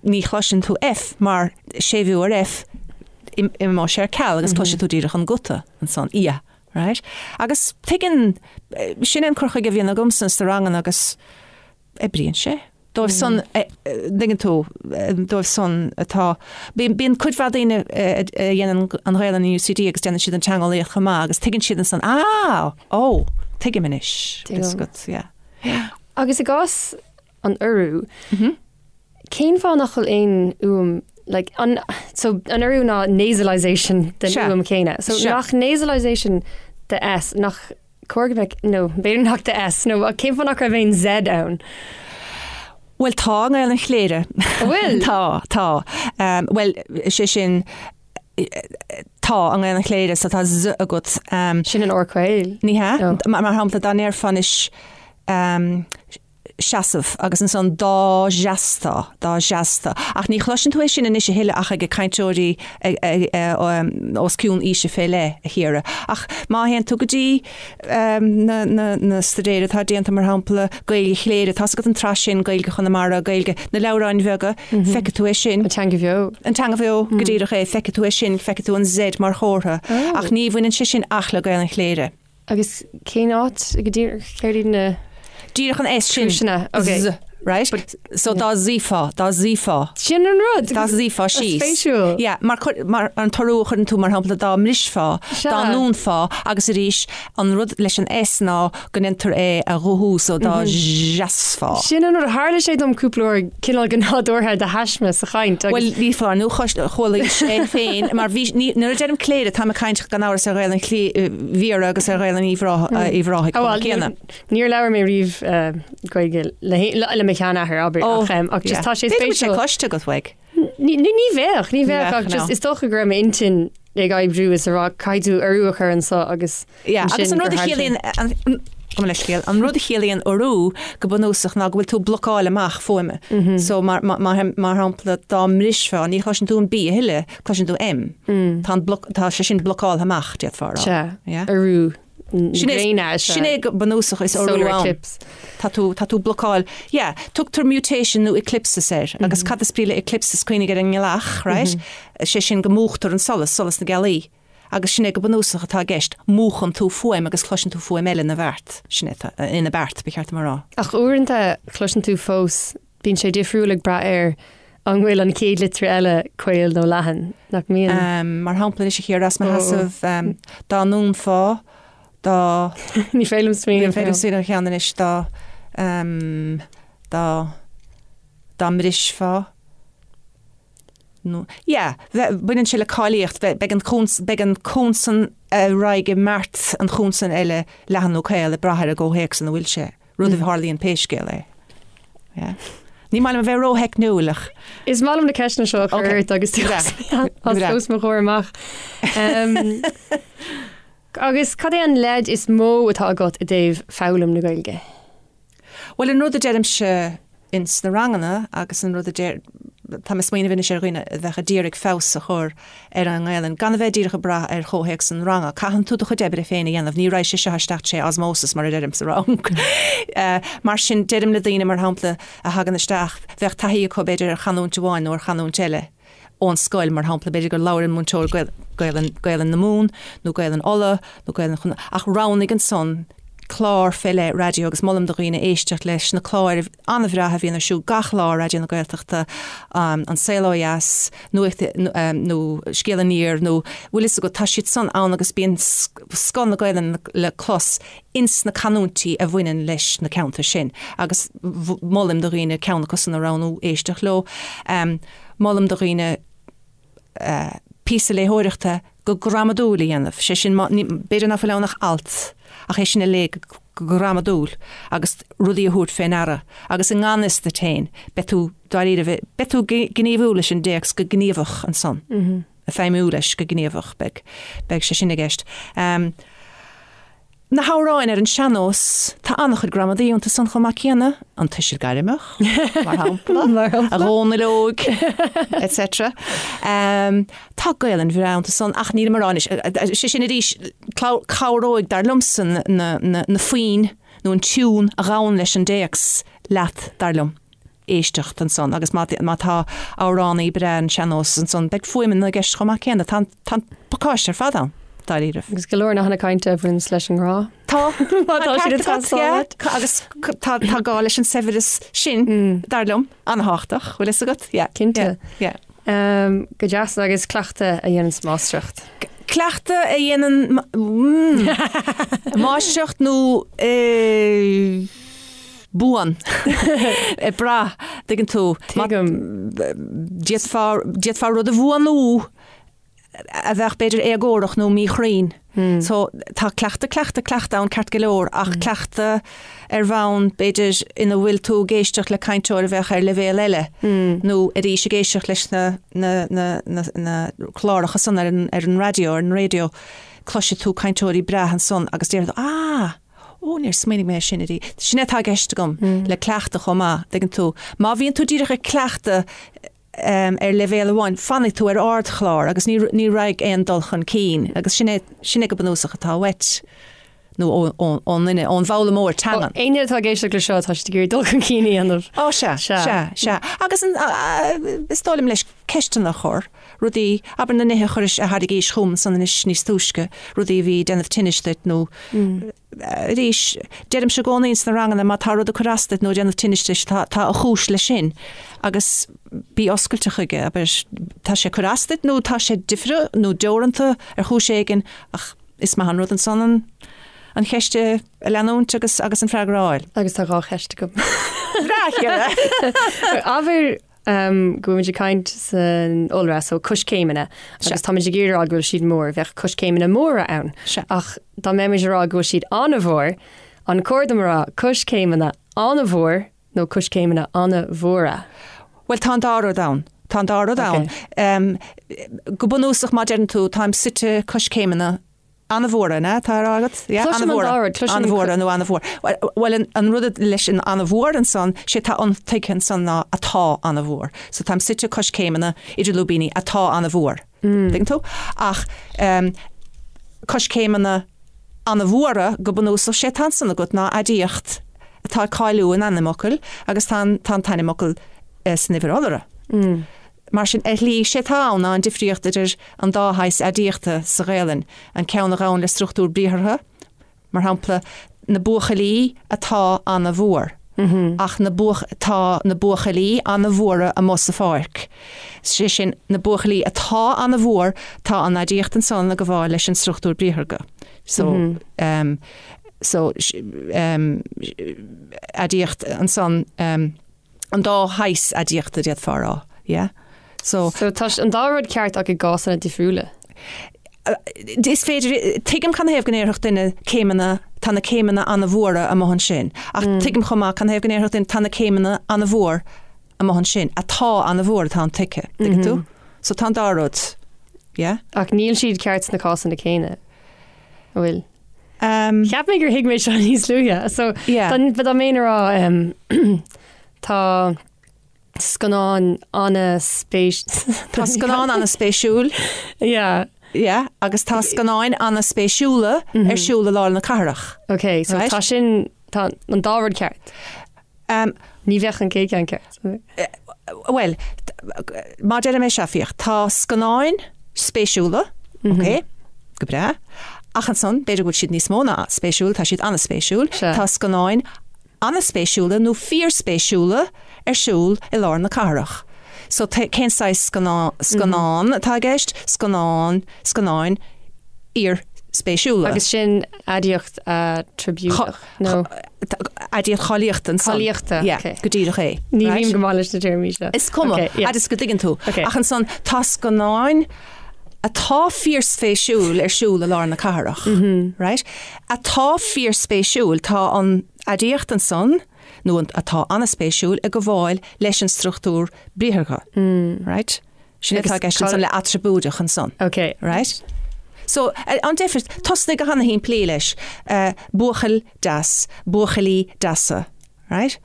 ní chloiseann tú F mar séimhiú ar F, imeoidh sé ar ceal agus cloisfidh tú díreach an guta ansan, ia. Right? Agus tuigeann, sin é an cur chuige a bhíonn agamsa sna ranganna agus oibríonn sé. Dóibh san, dtuigeann tú, dóibh san atá, bíonn cuid mhaith daoine a dhéanann an Ghaelainn in UCD agus déanann siad an teangeolaíocht chomh maith agus tuigeann siad ansan, ah, ó, tuigim anois. Tuigim. Yeah. Yeah. Agus i gcás an urú, Cén fáth nach bhfuil aon fhuaim like an so an urú ná nasalization den Sea. fhuaim chéanna. So Sea. nach nasalization de S nach cóir go mbeadh nó b'fhéidir nach de S nó cén fáth nach raibh aon Z ann? Bhuel tá i nGaelainn Chléire. An bhfuil? Tá, tá. Um, bhuel, sé sin tá i nGaelainn Chléire so tá Z agat. Um, Sin an R caol. ní hea? No. Mar, mar shampla dá ndéarfá anois um, seasamh agus ansan dá seastá, dá seastá. Ach ní chloiseann tú é sin anois a thuilleadh ach ag cainteoirí os cionn aoise fé leith, a Chiara. Ach má théann tú go dtí na staidéir atá déanta, mar shampla, Gaeilge Chléire, tá's agat an tsraith sin, Gaeilge Chonamara, Gaeilge na leabhráin bheaga, feicfidh tú é sin. An teanga bheo. An teanga bheo, go díreach é, feicfidh tú é sin, feicfidh tú an Z mar chomhartha. Ach ní bhaineann sé sin ach le Gaelainn Chléire. Agus cén áit go díreach céard iad na Díreach an S sin. Cúiseanna, ok. Z, right? So dá suífeá, dá suífeá. Sin an rud! Dá suífeá síos. Spéisiúil. Yeah, mar chuir, mar an t-urú a chuireann tú, mar shampla, dá mbrisfeá, Sea. dá ndúnfá, agus arís, an rud leis an S ná go ndéantar é a ghuthú, so dá seasfá. Sin an rud, tharla sé dom cúpla uair cineál go nádúrtha de thaisme sa chaint agus. Bhuel, ní foláir nó chualaís é féin, mar bhí, ní, nuair a deirim Cléire, táim ag caint gan amhras ar Ghaelainn Bhiorra agus ar Ghaelainn Uíbh Ráthaigh Ó, chomh bhuel, céanna. níor labhair mé riamh Gaeilge le, le mo sheanathair, abair, Ó, ach, ach just yeah. tá sé B'fhéidir go bhfuil sé spéisiúil. cloiste agat uaidh. Ní, ní, ní bheadh, ní bheadh, Ní bheadh, ach just no. is dócha go raibh m'intinn ag oibriú is a rá caithfidh tú urú a chur anso agus Yeah, agus ansin an rud gur a tharla sé. chiallaíonn, an, gabh mo leithscéal, an rud a chiallaíonn urú go bunúsach ná go bhfuil tú ag blocáil amach fuaime. So mar, mar, mar, mar shampla dá mbrisfeá, ní chloiseann tú an B a thuilleadh, cloiseann tú M. Tá an bloc, tá sé sin blocáltha amach, d'fhéadfá a rá. Sea, Yeah. urú na Sin é, gréine is sin é go bunúsach is urú solar ann. eclipse. Tá tú, tá tú blocáil, yeah, tugtar mutation nó eclipsis air, agus cad is brí le eclipsis, cuimhnigh ar an ngealach, right? Sé sin go múchtar an solas, solas na gealaí. Agus sin é go bunúsach atá i gceist, múchann tú fuaim agus cloiseann tú fuaim eile ina bheart, sin é atá, ina beart, ba cheart dom a rá. Ach uaireanta cloiseann tú fós, bíonn sé difriúil ag brath ar an bhfuil an chéad litir eile caol nó leathan, nach mbíonn? Mar shampla anois a Chiara, as mo sheasamh, dá ndúnfá, dá. Ní féidir liom smaoineamh. Ní féidir liom smaoineamh ar cheann anois, dá, dá, dá mbrisfeá. Nó, yeah, bheith, baineann sé le cáilíocht, bheith, beidh an chons, beidh an consan a raghaidh i mbeart an chonsain eile leathan nó caol ag brath ar an gcomhthéacs ina bhfuil sé, rud a tharlaíonn pé scéal é. Yeah. Ní maith liom a bheith rótheicniúil ach. Is maith liom na ceisteanna seo a chur ort agus tú as os mo chomhair amach. Agus cad é an leid is mó atá agat i dtaobh foghlaim na Gaeilge? Bhuel, an rud a deirimse ins na ranganna agus an rud a deir, tá mé ag smaoineamh anois ar dhaoine a bheadh a d'iarraidh feabhas a chur ar an nGaelainn, gan a bheith díreach ag brath ar chomhthéacs an ranga. Caitheann tú do chuid oibre féin a dhéanamh, ní raghaidh sé seo isteach tré osmosis mar a deirim sa rang. Mar sin, deirim le daoine, mar shampla, a thagann isteach, bheadh taithí acu b'fhéidir ar chanúint amháin nó ar chanúint eile, ón scoil, mar shampla, b'fhéidir gur labhair an múinteoir Gaelainn, Gaelainn na Mumhan nó Gaelainn Uladh nó Gaelainn Chonnacht, ach roghnaigh ansan clár fé leith raidió agus molaim do dhaoine éisteacht leis na cláir an-bhreátha a bhíonn ar siúl gach lá ar Raidió na Gaeltachta, An Saol Ó Dheas, Nuacht nó Scéal Aniar nó bhfuil fhios agat, tá siad san ann agus bíonn scoth na Gaelainne le clos ins na canúintí a bhaineann leis na ceantair sin agus molaim do dhaoine ceann acu san a roghnú, éisteacht leo. Molaim do dhaoine píosa léitheoireachta go gramadúil a dhéanamh, sé sin, b'fhéidir ná fuil ann ach alt, ach é sin a léamh go gramadúil agus rudaí a thabhairt fé ndeara agus i ngan fhios duit féin, beidh tú, dáiríre, beidh tú ag gníomhú leis an dtéacs go gníomhach ansan, ag feidhmiú leis go gníomhach, beidh, beidh sé sin i gceist. Na hamhráin ar an sean-nós, tá an-chuid gramadaí iontu san chomh maith céanna, an tuiseal gairmeach, mar shampla, a Dhónaill óig, etc. Tá Gaelainn bhreá iontu san, ach nílim a rá anois, sé sin arís, cabhróidh, dar liomsa, na foinn nó an tiún a ghabhann leis an dtéacs leat, dar liom. éisteacht ansan agus má tá amhránaí breá an sean-nós ansan beidh fuaimeanna i gceist chomh maith céanna. Tá an pacáiste ar fad ann, dáiríribh. Agus go leor nathanna cainte a bhaineanns leis an ngrá. Tá, má tá siad ag teastáil uait. Agus tá gá leis an saibhreas sin, dar liom, an-thábhachtach, bhfuil fhios agat? Yeah. Cinnte. Yeah. Go deas agus cleachtadh a dhéananns máistreacht. Cleachtadh a dhéanann máistreacht nó buan. Ag brath, tuigeann tú. Tuigim. D'fhéadfá, d'fhéadfá rud a bhuanú a bheadh b'fhéidir éagórach nó míchruinn. So tá cleachtadh, cleachtadh, cleachtadh ann ceart go leor ach cleachtadh ar bhonn b'fhéidir ina bhfuil tú ag éisteacht le cainteoir a bheadh ar leibhéal eile nó arís ag éisteacht leis na, na, na, na, na cláracha san ar an, ar an raidió, ar an raidió, cloisfidh tú cainteoirí breátha ansan agus déarfaidh tú, ah! Ó, níor smaoinigh mé air sin ariamh. Sin é atá i gceist agam le cleachtadh chomh maith, dtuigeann tú. Má bhíonn tú díreach ag cleachtadh ar leibhéal amháin, fanfaidh tú ar ardchlár agus ní ní raghaidh aon dul chun cinn agus sin é sin é go bunúsach atá uait nó ón nduine, ón bhfoghlaimeoir teangan. Éinne atá ag éisteacht le seo, tá siad ag iarraidh dul chun cinn a dhéanamh. Ó, sea, sea, sea. Agus an, is dóigh liom leis ceisteanna a chur, rudaí, abair na nithe a chuiris, a thairgís chugam ansan anois níos túisce, rudaí a bhí ag déanamh tinnis duit nó arís, deirimse i gcónaí ins na ranganna má tá rud ag cur as duit nó ag déanamh tinnis duit, tá, tá a chúis leis sin agus bí oscailte chuige, abair, tá sé ag cur as duit nó tá sé difriúil nó deoranta ar chúis éigin ach is maith an rud ansan an, an cheist a leanúint agus, agus an freagra a fháil. Agus tá 2 cheist agam. Bhreá, a Chiara! Abair go bhfuil muid ag caint san iolra, so coiscéimeanna, agus táimid ag iarraidh a rá go bhfuil siad mór, bheadh coiscéimeanna móra ann. Ach dá mbeimis ag rá go bhfuil siad an-mhór, an cóir dom a rá coiscéimeanna an-mhór nó coiscéimeanna an-mhóra? Bhuel, tá an dá rud ann. Tá an dá rud ann. Go bunúsach, má deireann tú, táim suite coiscéimeanna An-mhóra, an ea? Atá á rá agat? Yeah, Cloisim an dá rud. Cloisim. An-mhóra nó an-mhór. Bhuel, an rud leis an an-mhór ansan, sé atá intuigthe ansan ná atá an-mhór. So táim suite coiscéimeanna idir lúibíní atá an-mhór. Tuigeann tú? Ach coiscéimeanna an-mhóra, go bunúsach, sé atá ansan agat ná aidiacht atá ag cáiliú an ainmfhocail agus tá an t-ainmfhocal san uimhir iolra. Mar sin, ar shlí, sé atá ann ná an difríocht idir an dá shaghas aidiachta sa Ghaelainn, an ceann a ghabhann le struchtúr briathartha, mar shampla, na buachaillí atá ana-mhór, ach na buach, tá na buachaillí ana-mhóra amuigh sa pháirc. Sé sin, na buachaillí atá ana-mhór, tá an aidiacht ansan ag gabháil leis an struchtúr briathartha. So, um, so, um, aidiacht ansan, um, an dá shaghas aidiachta d'fhéadfá a rá, yeah? So. So tá an dá rud ceart ach i gcásanna difriúla. Is féidir, tuigim canathaobh go ndéarfadh duine céimeanna, tá na céimeanna an-mhóra amuigh ansin, ach tuigim chomh maith canathaobh go ndéarfadh duine tá na céimeanna an-mhór amuigh ansin, atá an-mhór atá intuigthe, tuigeann tú? So tá an dá rud, yeah? Ach níl siad ceart sna cásanna céanna, an bhfuil? Cheap mé gur thuig mé seo níos luaithe. So dá mbeinn a rá tá scannán an-spéis. Tá scannán an-spéisiúil. Yeah. Yeah, agus tá scannáin an-spéisiúla ar siúl i lár na cathrach. Ok, so tá sin, tá an dá rud ceart. Ní bheadh an chéad cheann ceart. Bhuel, má deirim é seo, féach, tá scannáin spéisiúla, ok, go breá, ach ansan, b'fhéidir go bhfuil siad níos mó ná spéisiúil, tá siad an-spéisiúil, tá scannáin an-spéisiúla nó fíorspéisiúla ar siúl i lár na cathrach. So cén saghas scannán atá i gceist? Scannán, scannáin fhíorspéisiúla. Agus sin aidiacht aitreabúideach, nó? Aidiacht cháilíochta ansan. Cáilíochta, ok. Yeah, go díreach é. Ní bhím go maith leis na téarmaí seo. Is cuma, fhad is go dtuigeann tú. Ach ansan tá scannáin atá fíorspéisiúil ar siúl i lár na cathrach, right? Atá fíorspéisiúil, tá an aidiacht ansan, nó an atá an-spéisiúil, ag gabháil leis an struchtúr briathartha, right? Sin atá i gceist ansan le aitreabúideach ansan. Ok. Right? So, an deifir, tosnaigh go hana-shimplí leis, buachaill deas, buachaillí deasa, right?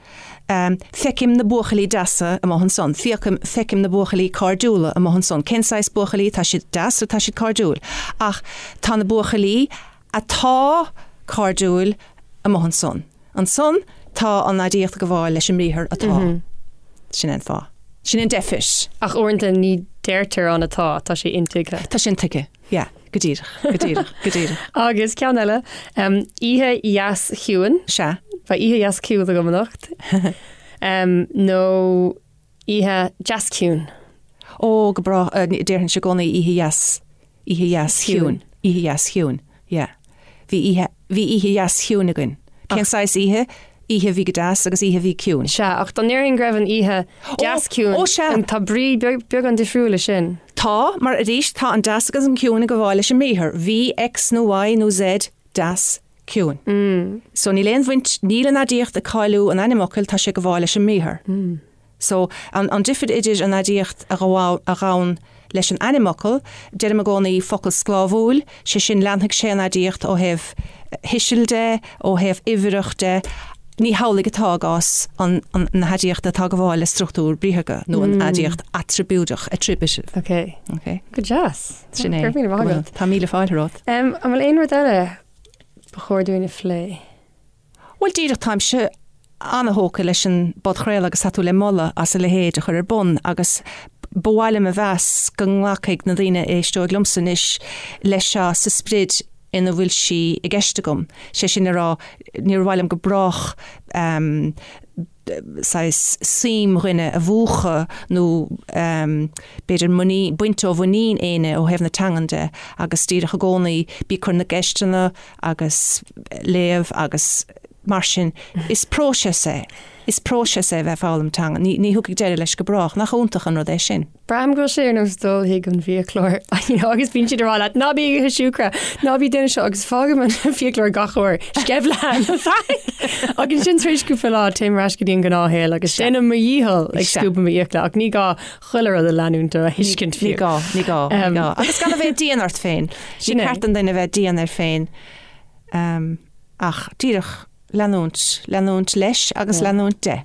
Feicim na buachaillí deasa amuigh ansan, feicim, feicim na buachaillí cairdiúla amuigh ansan. Cén saghas buachaillí? Tá siad deas nó tá siad cairdiúil? Ach tá na buachaillí atá cairdiúil amuigh ansan. Ansan tá an aidiacht ag gabháil leis an mbriathar atá. Sin é an fáth. Sin é an deifir. Ach uaireanta ní deirtear an atá, tá sé intuigthe. Tá sé intuigthe, yeah. Go díreach, go díreach, go díreach. Agus ceann eile, oíche dheas chiúin. Sea. Beidh oíche dheas chiúin agam anocht. Nó oíche deas ciúin. Ó, go breá, déarfainnse i gcónaí oíche dheas, oíche dheas chiúin, oíche dheas chiúin, yeah. Bhí oíche, bhí oíche dheas chiúin againn. Cén saghas oíche? Oíche a bhí go deas agus oíche a bhí ciúin. Sea, ach dá ndéarfainn go raibh an oíche deas ciúin, Ó, sea. tá brí beagán difriúil leis sin. Tá, mar arís, tá an deas agus an ciúin ag gabháil leis an mbriathar. Bhí X nó Y nó Z deas ciúin. So níl aon bhaint, níl an aidiacht ag cáiliú an ainmfhocail, tá sé ag gabháil leis an mbriathar. So, an difir idir an aidiacht a ghabhann leis an ainmfhocal, deirim i gcónaí focal sclábhúil, sé sin leanfaidh sé an aidiacht ó thaobh thuisil de, ó thaobh uimhreach de, ní hamhlaidh atá i gcás an na haidiachta atá ag gabháil le struchtúr briathartha nó an aidiacht aitreabúideach, attributive. Ok. Ok. Go deas. Sin é. Go raibh míle maith agat. Tá míle fáilte romhat. An bhfuil aon rud eile ba chóir dúinn a phlé? Bhuel, díreach, táimse ana-thógtha leis an bpodchraoladh agus tá tú le moladh as a leithéid a chur ar bun agus ba mhaith liom a mheas go nglacfaidh na daoine a éisteoidh liomsa anois leis seo sa sprid ina bhfuil sí i gceist agam. Sé sin le rá, níor mhaith liom go brách saghas suim dhuine a mhúchadh nó b'fhéidir muinín, baint ó mhuinín éinne ó thaobh na teangan de agus díreach i gcónaí bí ag cur na gceisteanna agus léamh agus mar sin. Is próiseas é. Is próiseas é a bheith ag foghlaim teanga. Ní, ní thiocfaidh deireadh leis go brách. Nach iontach an rud é sin? Braithim go bhfuil sé ar nós dul chuig an bhfiaclóir you know, agus bíonn siad ag rá leat ná bí ag ithe siúcra, ná bí ag déanamh seo agus fágaim an fiaclóir gach uair, sceimhlitheán Agus ansin tar éis cúpla lá téim ar ais go dtí an gnáthshaol agus déanaim mo dhícheall ag scuabadh m'fhiacla ach ní gá chuile rud a leanúint nó a thuiscint fiú. Ní gá, ní gá, ní gá. Agus gan a bheith dian ort féin. Ní ceart don duine a bheith dian air féin ach díreach leanúint, leanúint leis agus leanúint de.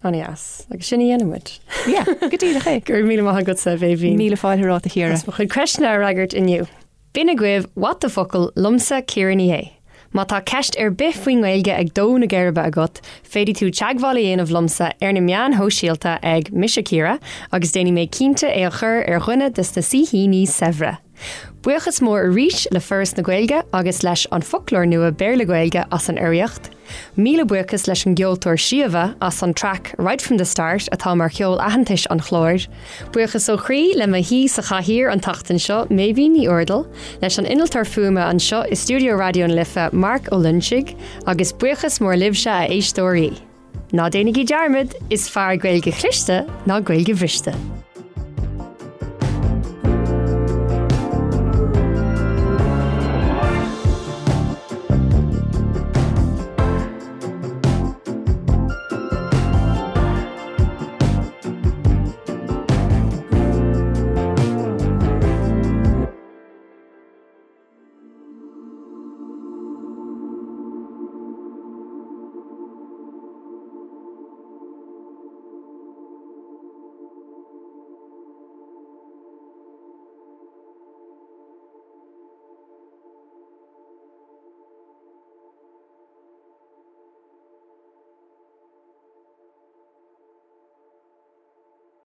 An-deas. Agus sin a dhéanfaidh muid. Yeah, go díreach é. Go raibh míle maith agatsa, a Bhéibhinn. Míle fáilte romhat, a Chiara. As mo chuid ceisteanna a fhreagairt inniu. B'in agaibh What the Focal liomsa Ciara Ní É. Má tá ceist ar bith faoin nGaeilge ag dó na geirbe agat, féadfaidh tú teagmháil a dhéanamh liomsa ar na meáin shóisialta ag Mise Ciara agus déanfaidh mé cinnte é a chur ar dhuine de na saoithíní saibhre. Buíochas mór arís le Foras na Gaeilge agus leis An Foclóir Nua Béarla-Gaeilge as an urraíocht. Míle buíochas leis an gceoltóir Síomha as an traic Right From The Start atá mar cheol aitheantais an chláir. Buíochas ó chroí le mo shaoi sa chathaoir an tseachtain seo, Méibhín Ní Úrdail, leis an innealtóir fuaime anseo i stiúideo Raidió na Life, Marc Ó Loinsigh, agus buíochas mór libhse a éisteoirí. Ná déanaigí dearmad, is fearr Gaeilge chliste ná Gaeilge bhriste.